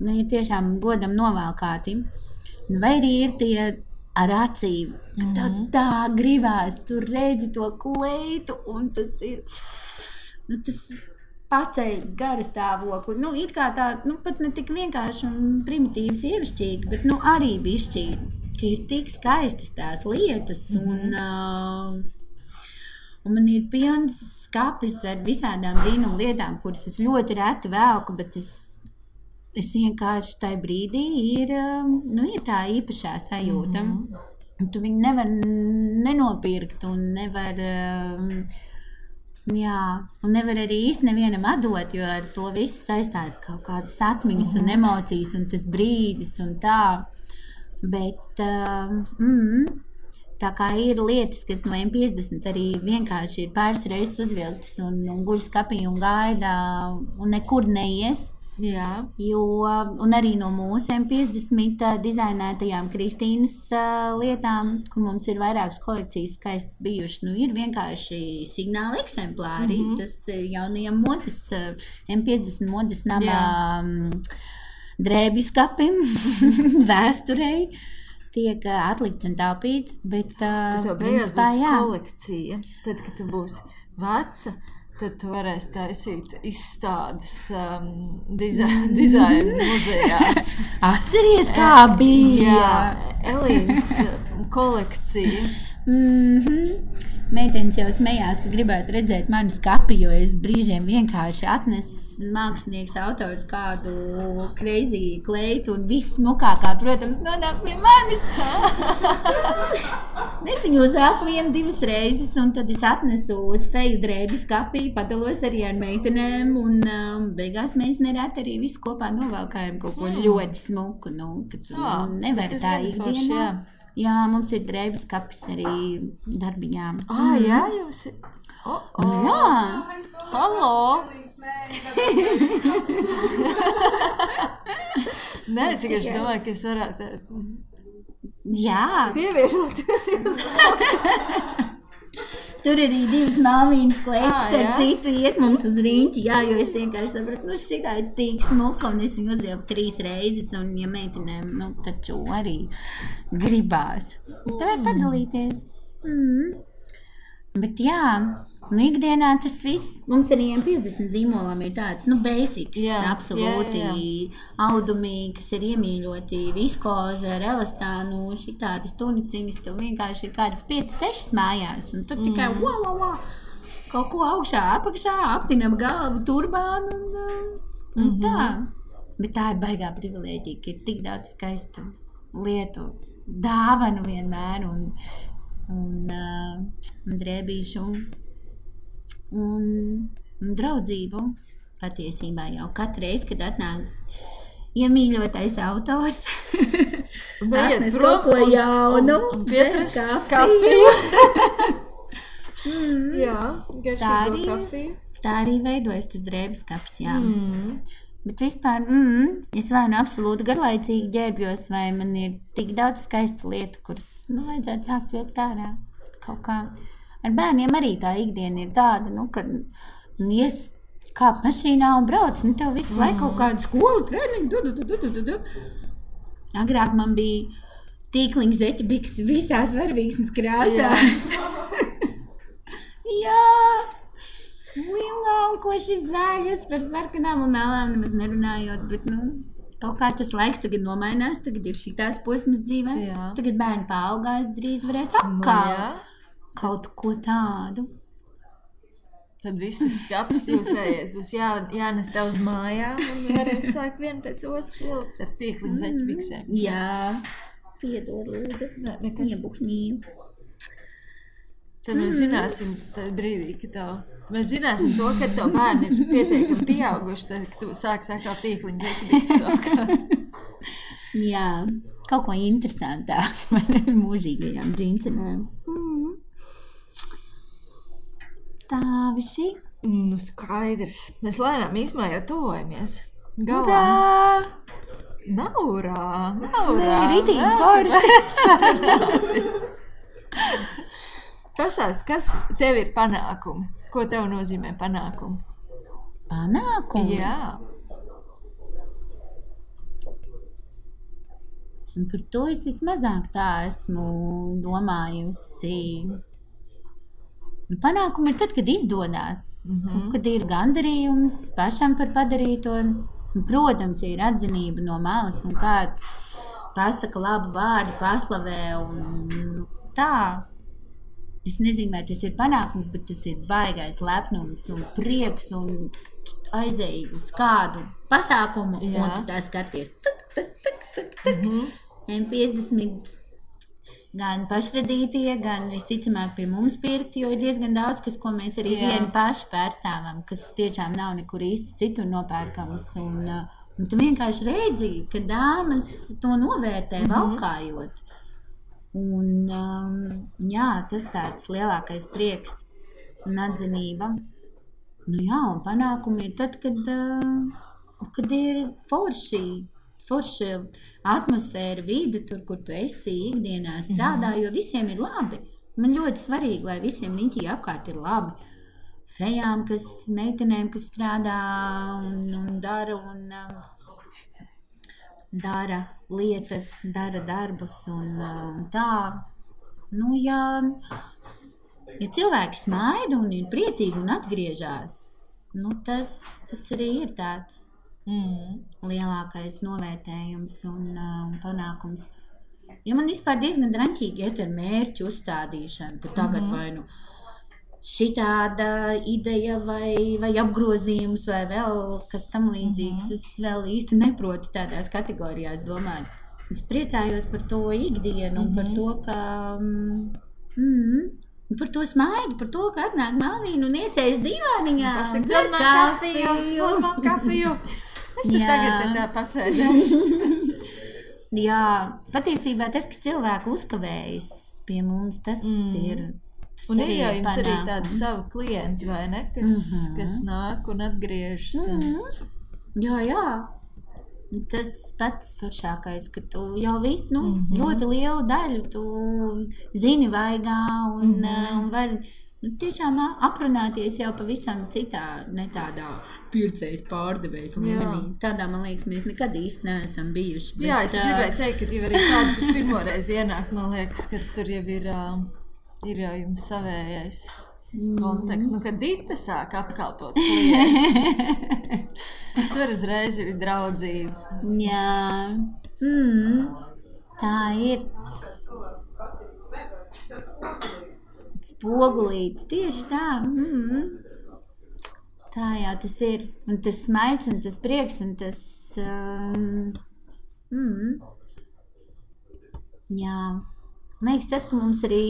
tiešām godam novalkāti. Vai arī ir tie ar acīm, ka tā gribās, tu redzi to kleitu un tas ir... tas paceļ gara stāvokli. It kā tā, pat ne tik vienkārši un primitīvi sievišķīgi, bet arī bišķīgi, ka ir tik skaistas tās lietas Un man ir pilns skapis ar visādām brīnumu lietām, kuras es ļoti reti velku, bet es vienkārši tajā brīdī ir tā īpašā sajūta. Un tu viņu nevar nenopirkt un nevar, un nevar arī īsti nevienam atdot, jo ar to visu saistās kaut kādas atmiņas un emocijas un tas brīdis un tā. Bet tā kā ir lietas, kas no M50 arī vienkārši ir pāris reizes uzvilktas un guļ skapī un gaida un nekur neies. Jā. Un arī no mūsu M50 dizainētajām Kristīnas lietām, kur mums ir vairākas kolekcijas skaistas bijušas, ir vienkārši signāli eksemplāri. Tas jaunajam modes, M50 modes namā drēbju skapim, vēsturei tiek atlikts un taupīts, bet tad tev beigās būs kolekcija. Tad, kad tu būsi veca, tad tu varēsi taisīt izstādes dizaina muzejā. Atceries, kā bija? Jā, Elīnas kolekcija. Meitenes jau smējās, ka gribētu redzēt manu skapi, jo es brīžiem vienkārši atnesu mākslinieks autors kādu crazy kleitu un viss smukākā, protams, nonāk pie manis. Es viņu uzvelku 1-2 reizes un tad es atnesu uz feju drēbju skapī, padalos arī ar meitenēm un beigās mēs nereti arī visi kopā novelkājam kaut ko ļoti smuku, kad nevar tā ikdienā. Jā, mums ir drēbju skapis arī darbiņām. Jā, jums ir? Jā. Halo! Nē, es vienkārši domāju, ka es varētu pievienoties jums. Tur arī 2 Malvīnas kleitas, starp citu iet mums uz riņķi, jo es vienkārši sapratu, šitā ir tik smuka, un es viņu uzvilku 3 reizes, un ja meitenēm, taču arī gribās. Tu vari padalīties. Bet jā, ikdienā tas viss, mums arī M50 zīmolam ir tāds, basics, absolūti audumi, kas ir iemīļoti, viskoze ar elastānu, šitādas tuniciņas, tev vienkārši ir kādas 5-6 mājās, un tu tikai kaut ko augšā, apakšā, aptinam galvu, turbānu un tā. Bet tā ir baigā privilēģija, ka ir tik daudz skaistu lietu, dāvanu vienmēr un drēbīšu un draudzību patiesībā jau katru reizi, kad atnāk iemīļotais autors, atnes kaut ko jaunu, piepras kafiju. Jā, garšīgo kafiju. Tā arī veidojas tas drēbes kapis, jā. Bet vispār, es vai absolūti garlaicīgi ģērbjos, vai man ir tik daudz skaistu lietu, kuras vajadzētu sākt vilkt ārā kaut kā. Ar bērniem arī tā ikdiena ir tāda, kad ies kāp mašīnā un brauc, tev visu laiku kaut kādu skolu treniņu, Agrāk man bija tīkliņa zeķebiks visās varvīksnes krāsās. Jā. Koši zaļas par sarkanām un melām nemaz nerunājot, bet, kaut kā tas laiks tagad nomainās, tagad ir šitāds posms dzīvē, tagad bērni paaugās, drīz varēs apkalt kaut ko tādu. Tad viss tas skapis jūsējies būs jānes tev uz mājām un varēs sākt vienu pēc otru švilpt ar tīkliņu zeķebiksēm. Jā, piedod lūdzu, iebuhņīju. Tad mēs zināsim tajā brīdī, mēs zināsim to, ka tev bērni ir pietiekami pieauguši, tad, ka tu sāks atkal tīkliņu zeķebiks vakāt. Jā, kaut ko interesantāk par mūžīgajām džinsenēm. Tā visi? Skaidrs. Mēs lēnām īsmā jau tuvojamies. Galā! Naurā! Ritīgi forši! Pasāst, kas tev ir panākumi? Ko tev nozīmē panākumi? Panākumi? Jā. Un par to es vismazāk tā esmu domājusi. Panākumi ir tad, kad izdodās. Kad ir gandarījums pašam par padarīto. Protams, ir atzinība no malas un kāds pasaka labu vārdu, paslavē un tā. es nezinu, vai tas ir panākums, bet tas ir baigais lepnums un prieks un aizēju uz kādu pasākumu, un tu tā skaties, M50 gan pašradītie, gan visticamāk pie mums pirkti, jo ir diezgan daudz, ko mēs arī vieni paši pārstāvam, kas tiešām nav nekur īsti citur nopērkams, un tu vienkārši redzi, ka dāmas to novērtē valkājot. Un jā, tas tāds lielākais prieks un atzinība. Nu jā, un panākumi ir tad, kad ir forša atmosfēra, vide tur, kur tu esi ikdienā strādā, jo visiem ir labi. Man ļoti svarīgi, lai visiem riņķī apkārt ir labi. Fejām, meitenēm, kas strādā un dara lietas, dara darbus un tā. Nu, ja cilvēki smaida un ir priecīgi un atgriežās, nu, tas arī ir tāds lielākais novērtējums un panākums. Jo man vispār diezgan draņķīgi iet ar mērķu uzstādīšanu, ka tagad vai nu šitāda ideja vai apgrozījums vai vēl kas tam līdzīgs. Es vēl īsti neprotu tādās kategorijās domāt. Es priecājos par to ikdienu un par to, ka par to smaidu, par to, ka atnāk Malvīna un iesēž divāniņā un dzer kafiju. Es tur tagad tā pasēdēšu. Jā, patiesībā tas, ka cilvēki uzkavējas pie mums, tas ir un ir jau jums arī tādi savi klienti, vai ne? Kas nāk un atgriežas. Jā. Tas pats foršākais, ka tu jau ļoti lielu daļu tu zini vaigā un vari tiešām aprunāties jau pavisam citā, ne tādā pircējas pārdevējas līmenī. Tādā, man liekas, mēs nekad īsti neesam bijuši. Bet, jā, es gribēju teikt, ka jau arī tādu, kas pirmoreiz ienāk, man liekas, ka tur jau ir jau jums savējais konteksts. Nu, kad Dita sāk apkalpot klientus, tur uzreiz ir draudzība. Jā, tā ir. Spogulīts, tieši tā. Tā jau tas ir. Un tas smaids un tas prieks un tas... Jā. Man liekas, tas, ka mums arī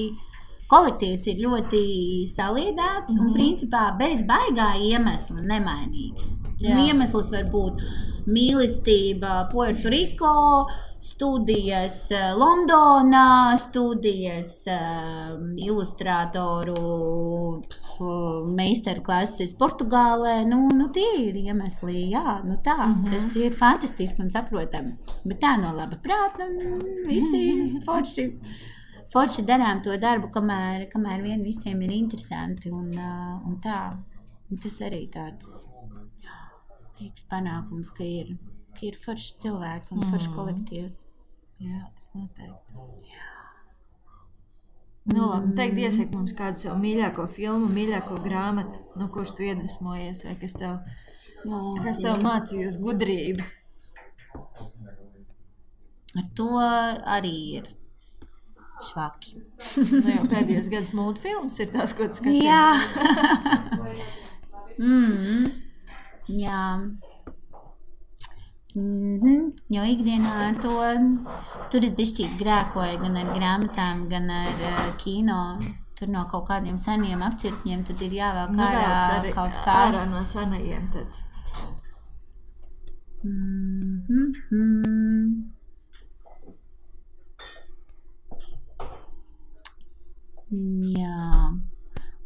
kolektīvs ir ļoti saliedēts un principā bez baigā iemesla nemainīgs. Iemesls var būt mīlestība Puerto Rico, studijas Londonā, studijas ilustrātoru meistarklases Portugālē. Nu tie ir iemesli, jā, nu tā. Tas ir fantastiski un saprotami. Bet tā no laba prāta, visi forši darām to darbu, kamēr vien visiem ir interesanti un tā. Un tas arī tāds prieks panākums, ka ir forši cilvēki un forši kolektīvs. Jā, tas noteikti. Jā. Nu labi, teikt iesaka mums kādu savu mīļāko filmu, mīļāko grāmatu, no kuras tu iedvesmojies, vai kas tev mācījus gudrību? Ar to arī ir švaki. Nu jau pēdējos gadus multfilms ir tās, ko tu skaties. Jā. Jā. Jo ikdienā ar to tur es bišķīt grēkoju gan ar grāmatām, gan ar kino. Tur no kaut kādiem seniem apcirkņiem tad ir jāvēl ārā kaut kāds. Ārā no senajiem tad. Jā.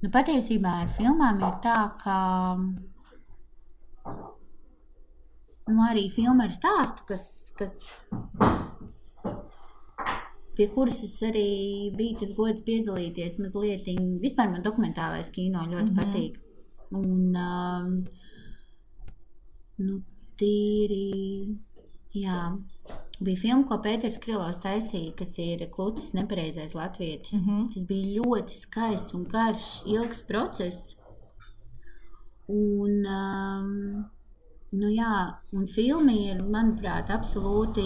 Nu, patiesībā ar filmām ir tā, ka arī filma ar stāstu, kas pie kuras es arī biju tas gods piedalīties mazliet. Vispār man dokumentālais kino ļoti patīk. Un, tīri, jā, bija filma, ko Pēters Krilovs taisīja, kas ir Klucis nepareizais latvietis. Tas bija ļoti skaists un garš, ilgs process. Un, jā, un filma ir, manuprāt, absolūti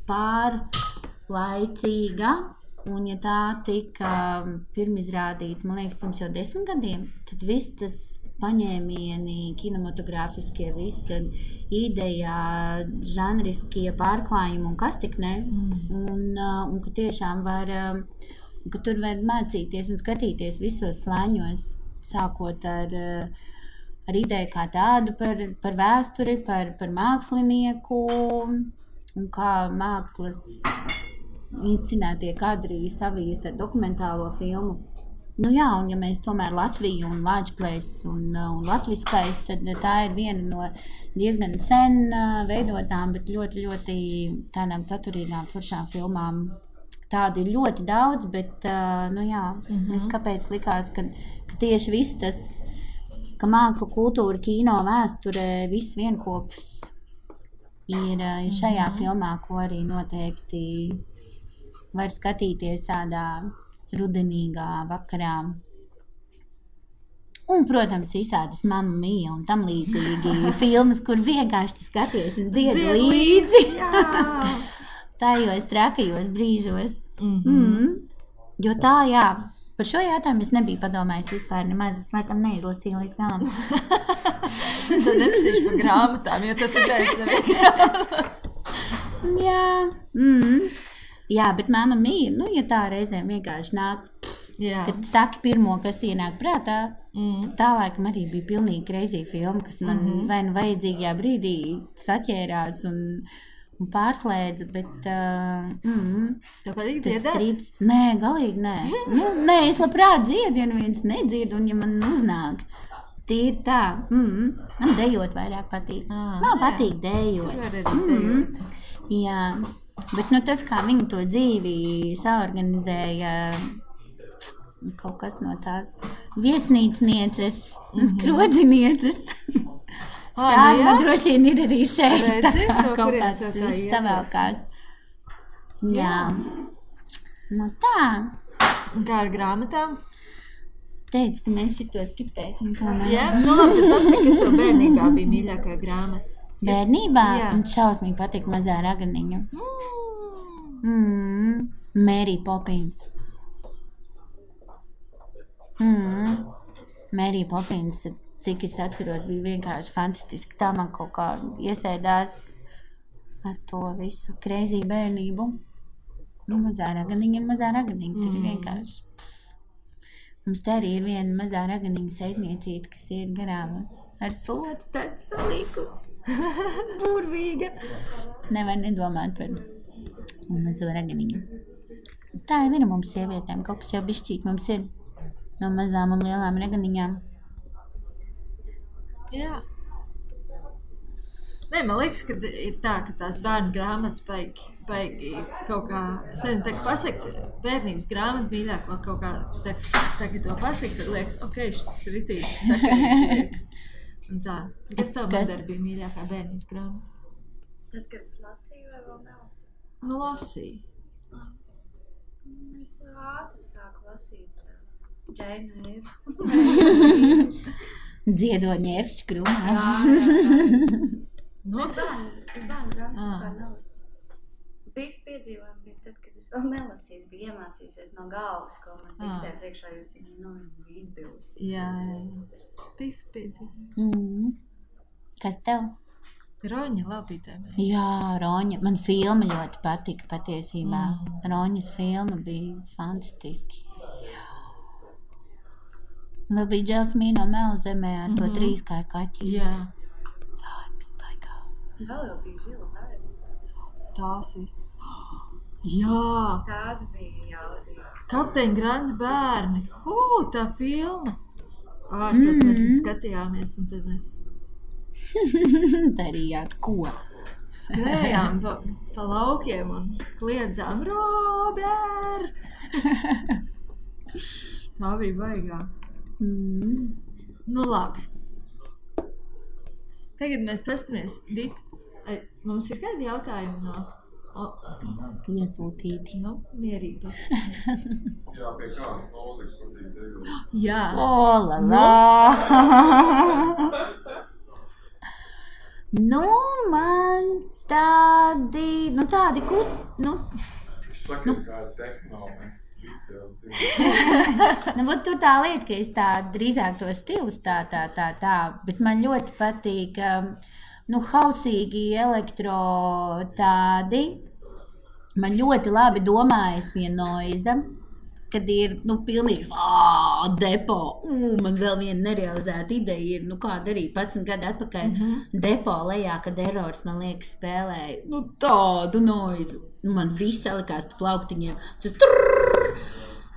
pārlaicīga Un ja tā tika pirmizrādīta, man liekas, pirms jau 10 gadiem, tad viss tas paņēmieni, kinematogrāfiskie, visa ideja, žanriskie pārklājumi un kas tik ne. Un ka tiešām var, ka tur var mācīties un skatīties visos slāņos, sākot ar ideju kā tādu par vēsturi, par mākslinieku un kā mākslas inscenētie kadri savijas ar dokumentālo filmu. Nu jā, un ja mēs tomēr Latviju un Lāčplēs un latviskais, tad tā ir viena no diezgan sen veidotām, bet ļoti, ļoti tādām saturīgām, foršām filmām. Tādu ir ļoti daudz, bet, nu jā, es kāpēc likās, ka tieši viss tas, ka māksla, kultūra, kino, vēsture, viss vienkopus ir šajā filmā, ko arī noteikti var skatīties tādā rudenīgā vakarā. Un, protams, visādas Mamma Mia un tam līdzīgi filmas, kur vienkārši tu skaties un dziedi līdzi. Tajos trakajos brīžos. Jo tā, jā, par šo jautājumu es nebiju padomājis vispār nemaz, es laikam neizlasīju līdz galam. Es tad neprasīšu par grāmatām, jo tad tu neesi grāmatas. Jā, jā, bet Mamma Mia, nu, ja tā reizēm vienkārši nāk, kad saki pirmo, kas ienāk prātā, tad tā laikam arī bija pilnīgi crazy filma, kas man vai nu vajadzīgajā brīdī saķērās un pārslēdza, bet Tev patīk dziedāt? Nē, galīgi nē. Nē, es labprāt dziedu, ja neviens nedzird, un ja man uznāk. Tīri tā. Man dejot vairāk patīk. Man patīk dejot. Tur var arī dejot. Jā. Bet nu, tas, kā viņi to dzīvi saorganizēja, kaut kas no tās viesnīcnieces, krodzinieces. Šādi man droši vien ir arī šeit. Redzi, tā kā no kaut kurienes kāds jau tā viss savēlkās. Jā. Nu tā. Un kā ar grāmatām? Teicu, ka mēs šito skipēsim tomēr. Jā, nu labi, tad pasaka, kas tev bērnībā bija mīļākā grāmata. Bērnībā? Jā. Un šausmīgi patīk Mazā raganiņa. Mary Poppins. Mary Poppins, cik es atceros, bija vienkārši fantastiski. Tā man kaut kā iesēdās ar to visu crazy bērnību. Nu, Mazā raganiņa, tur ir vienkārši. Mums te arī ir viena mazā raganiņa seitniecīte, kas iet garām ar slotu tāds salīkus. Burvīga. Nevar nedomāt par mazo raganiņu. Tā ir viena mums sievietēm, kaut kas jau bišķīt mums ir no mazām un lielām raganiņām. Jā. Nē, man liekas, ka ir tā, ka tās bērnu grāmatas baigi kaut kā, es nezinu, tā kā pasaka bērnības grāmatu mīļāko kaut kā, tā kā to pasaka, tad liekas, ok, šis ritīgi sakarīgi liekas. Un tā, kas tev Mandar bija mīļākā bērnības grāmata? Tad, kad es lasīju vai vēl nelasīju? Nu, lasīju. Es ātri sāku lasīt Jane Eyre. Dziedot ņēršķi krūmā. No? Es bērnu grāmatas vispār nelasīju. Bija piedzīvojumi bija tad, kad es vēl nelasīju. Es biju iemācījusies no galvas, ko man diktē priekšā, jūs bija izdevusi. Jā. Bija piedzīvojumi. Kas tev? Roņa labītēmē. Jā, Roņa. Man filma ļoti patika patiesībā. Roņas filma bija fantastiski. Vēl bija Dželsmīno Melzemē ar to trīskāju kaķi. Jā. Tā bija baigā. Vēl jau bija Žila bērni. Tās Jā. Tās bija jaudīgas. Kapteiņa Grandi bērni. Tā filma. Ārprāt, mēs viņu skatījāmies un tad mēs darījāt ko? Skrējām pa laukiem un kliedzām Robert! Tā bija baigā. Nu labi. Tagad mēs pastamies. Dita, mums ir kādi jautājumi no... Iesūtīti. Nu, mierīgi pastamies. Jā, pie kādas mūzikas patīk tevi. Jā. Nu, man tādi Saka, kā tehno, mēs visi jau zinām. Nu, vot tur tā lieta, ka es tā drīzāk to stilus tā, bet man ļoti patīk, hausīgi elektro tādi. Man ļoti labi domājas pie noiza, kad ir, pilnīgs depo. Man vēl viena nerealizēta ideja ir, kāda arī 11 gadu atpakaļ depo lejā, kad Errors, man liekas, spēlēja, tādu noizu. Man viss salikās pa plauktiņiem. Tas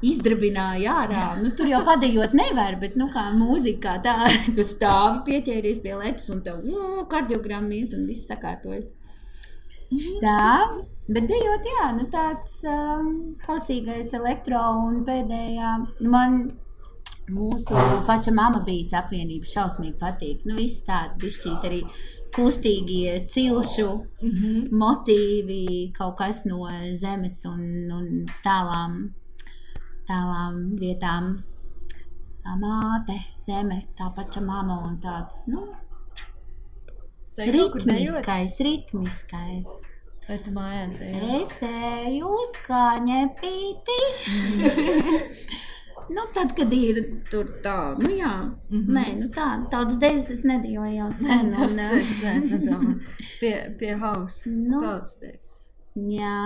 izdrabināja ārā. Tur jau padejot nevar, bet, kā mūzika tā, tu stāvi pieķēries pie letas un tev kardiogramma iet un viss sakārtojas. Tā, bet dejot, jā, tāds hausīgais elektro un pēdējā, man mūsu paša Mama Beats apvienība šausmīgi patīk. Viss tādi bišķīt arī kustīgie cilšu motīvi, kaut kas no zemes un tālām vietām. Tā māte, zeme, tā paša mama un tāds, ritmiskais. Vai tu mājās dejot? Es eju uz kaņepīti. Tad, kad ir tur tā, jā. Nē, tādas dejas es nedejoju jau sen. Es nedomāju. Pie house. Tāds dejas. Jā.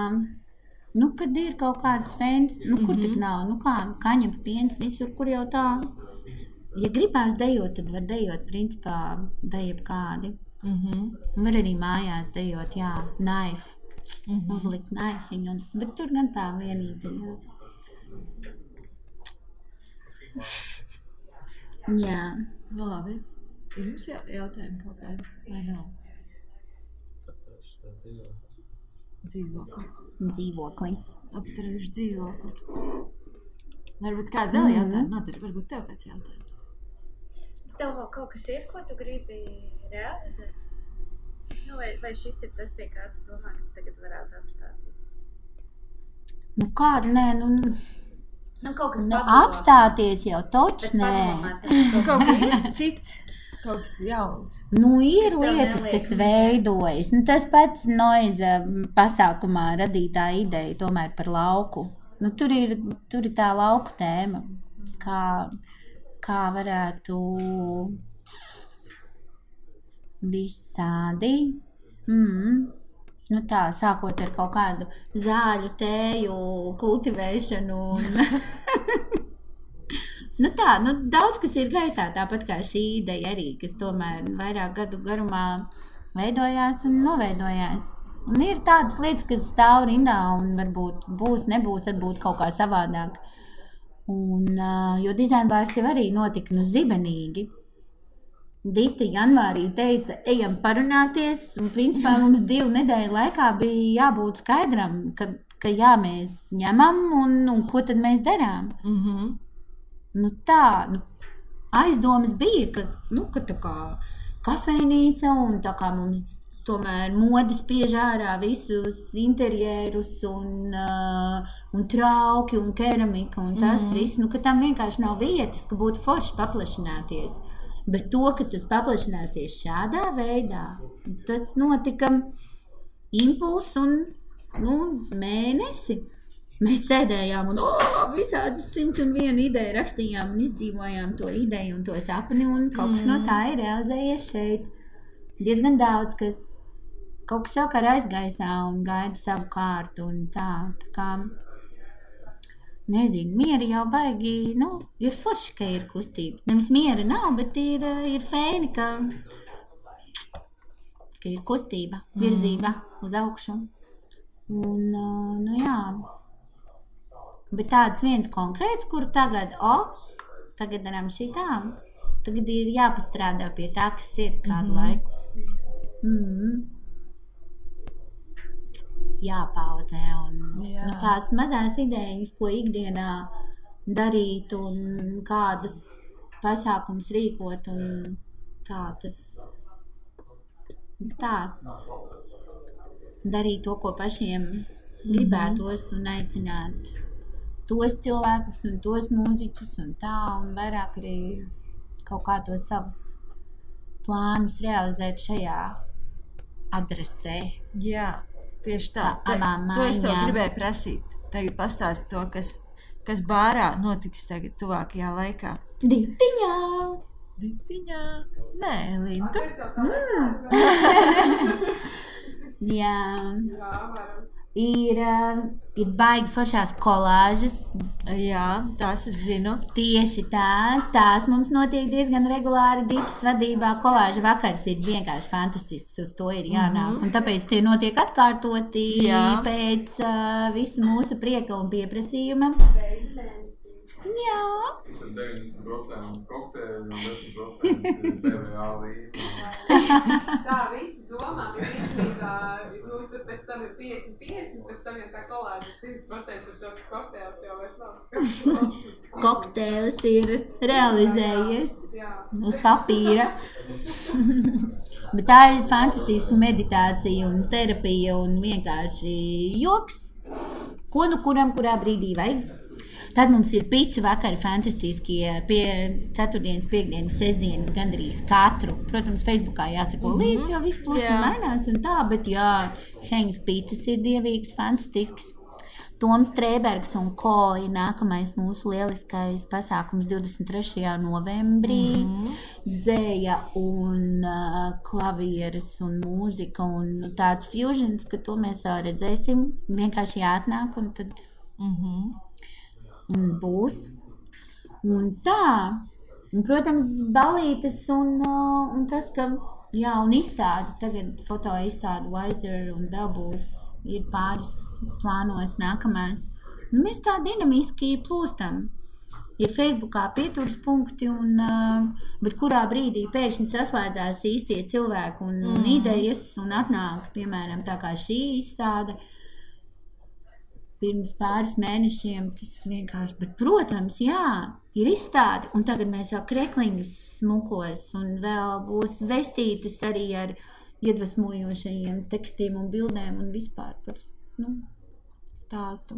Kad ir kaut kādas fēnas, kur tik nav, kaņepa piens, visur, kur jau tā. Ja gribās dejot, tad var dejot, principā, dejot kādi. Var arī mājās dejot, jā, knife. Uzlikt knaifiņu, bet tur gan tā vienīte, jā. Jā. Labi. Ir jums jautājumi kaut kādi, vai nav? Dzīvokli. Apturējuši dzīvokli. Varbūt kāda vēl jautājuma? Madara, varbūt tev kāds jautājums? Tev vēl kaut kas ir, ko tu gribi realizēt? Vai šis ir tas, pie kā tu domā, ka tagad varētu apstāties? Kāda, nē, kaut kas apstāties jau toč, nē. Kaut kas cits, kaut kas jauns. Ir lietas, kas veidojas. Tas pats noiza pasākumā radītā ideja tomēr par lauku. Tur ir tā lauku tēma, kā varētu visādi. Tā, sākot ar kaut kādu zāļu tēju kultivēšanu. Daudz kas ir gaisā, tāpat kā šī ideja arī, kas tomēr vairāk gadu garumā veidojās un noveidojās. Un ir tādas lietas, kas stāv rindā un varbūt nebūs, varbūt kaut kā savādāk. Jo dizainbārs jau arī notika zibenīgi. Dita janvārī teica, ejam parunāties, un principā mums 2 nedēļu laikā bija jābūt skaidram, ka jā, mēs ņemam, un ko tad mēs darām. Aizdomas bija, ka tā kā kafejnīca, un tā kā mums tomēr mode spiež ārā visus interjerus, un trauki, un keramika, un tas viss, ka tam vienkārši nav vietas, ka būtu forši paplašināties. Bet to, ka tas paplašināsies šādā veidā, tas notika impulss un mēnesi. Mēs sēdējām un visādas 101 ideja rakstījām un izdzīvojām to ideju un to sapni, un kaut kas no tā ir realizējies šeit. Diezgan daudz, kas kaut kas vēl kā aizgaisā un gaida savu kārtu un tā kā... Nezinu, mieri jau baigi, ir forši, ka ir kustība. Nevis miera nav, bet ir fēni, ka ir kustība, virzība uz augšu. Un, jā. Bet tāds viens konkrēts, kur tagad daram šitā, tagad ir jāpastrādā pie tā, kas ir kādu laiku. Jāpaudzē un tās mazās idejas, ko ikdienā darīt un kādas pasākums rīkot un darīt to, ko pašiem gribētos un aicināt tos cilvēkus un tos mūziķus un tā, un vairāk arī kaut kā tos savus plānus realizēt šajā adresē. Jā. Tieši tā. Abām To es tev mājām. gribēju prasīt. Tagad pastāst to, kas bārā notiks tagad tuvākajā laikā. Ditiņā. Nē, Elīna, tu? Jā. Ir baigi foršās kolāžas. Jā, tās es zinu. Tieši tā, tās mums notiek diezgan regulāri Ditas vadībā. Kolāža vakars ir vienkārši fantastisks, uz to ir jānāk. Un tāpēc tie notiek atkārtoti pēc visu mūsu prieka un pieprasījuma. Jā. Tas ir 90% kokteļi un 10% TVA līme. Tā visi domā, ka īstenībā, tur pēc tam ir 50-50, pēc tam jau tā kolāža 100% ir tāds kokteils jau vairs nav. Kokteils ir realizējies uz papīra. Bet tā ir fantastiska meditācija un terapija un vienkārši joks. Ko nu kuram, kurā brīdī vajag? Tad mums ir piču vakari fantastiskie pie 4. piekdienas, sestdienas gandrīz katru. Protams, Facebookā jāsako līdzi, jo viss plūst un mainās un tā, bet jā, Heņas pitas ir dievīgs, fantastisks. Toms Trēbergs un ko ir nākamais mūsu lieliskais pasākums 23. novembrī. Dzēja un klavieres un mūzika un tāds fusions, ka to mēs vēl redzēsim. Vienkārši jāatnāk un tad... Un būs. Un tā. Un, protams, balītes un tas, ka, jā, un izstādi, tagad foto izstādi Wiser un vēl būs, ir pāris plānos nākamās. Un mēs tā dinamiski plūstam. Ir Facebookā pieturas punkti, bet kurā brīdī pēkšņi saslēdzās īstie cilvēki un idejas un atnāk, piemēram, tā kā šī izstāde. Pirms pāris mēnešiem tas vienkārši, bet, protams, jā, ir izstāde, un tagad mēs jau krekliņus smukos, un vēl būs vestītas arī ar iedvesmojošajiem tekstiem un bildēm un vispār par, stāstu.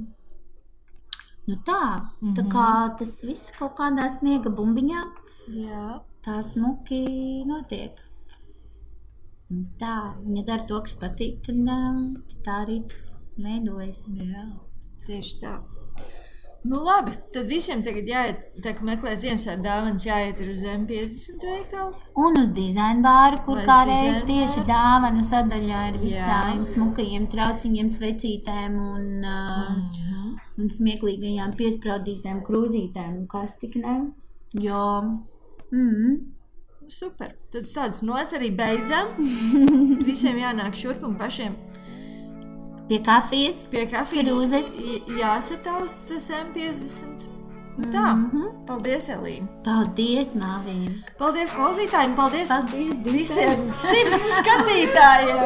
Tā kā tas viss kaut kādā sniega bumbiņā, tā smuki notiek. Tā, ja dara to, kas patīk, tad tā arī tas veidojas. Jā. Tieši tā. Nu labi, tad visiem tagad jāiet, tā kā meklē Ziemassvētku dāvanas, jāiet uz M50 veikalu. Un uz dizaina bāru, kur kādreiz tieši dāvanu sadaļā ar visām smukajiem trauciņiem, svecītēm un smieklīgajām piespraudītēm krūzītēm un kas tik ne. Jo, Super, tad uz tādas nots arī beidzam. Visiem jānāk šurp un pašiem pie kafijas, krūzes, jāsataust tas M50. Tā, paldies, Elīna. Paldies, Māvīna. Paldies klausītājiem, paldies Dita. visiem 100 skatītājiem.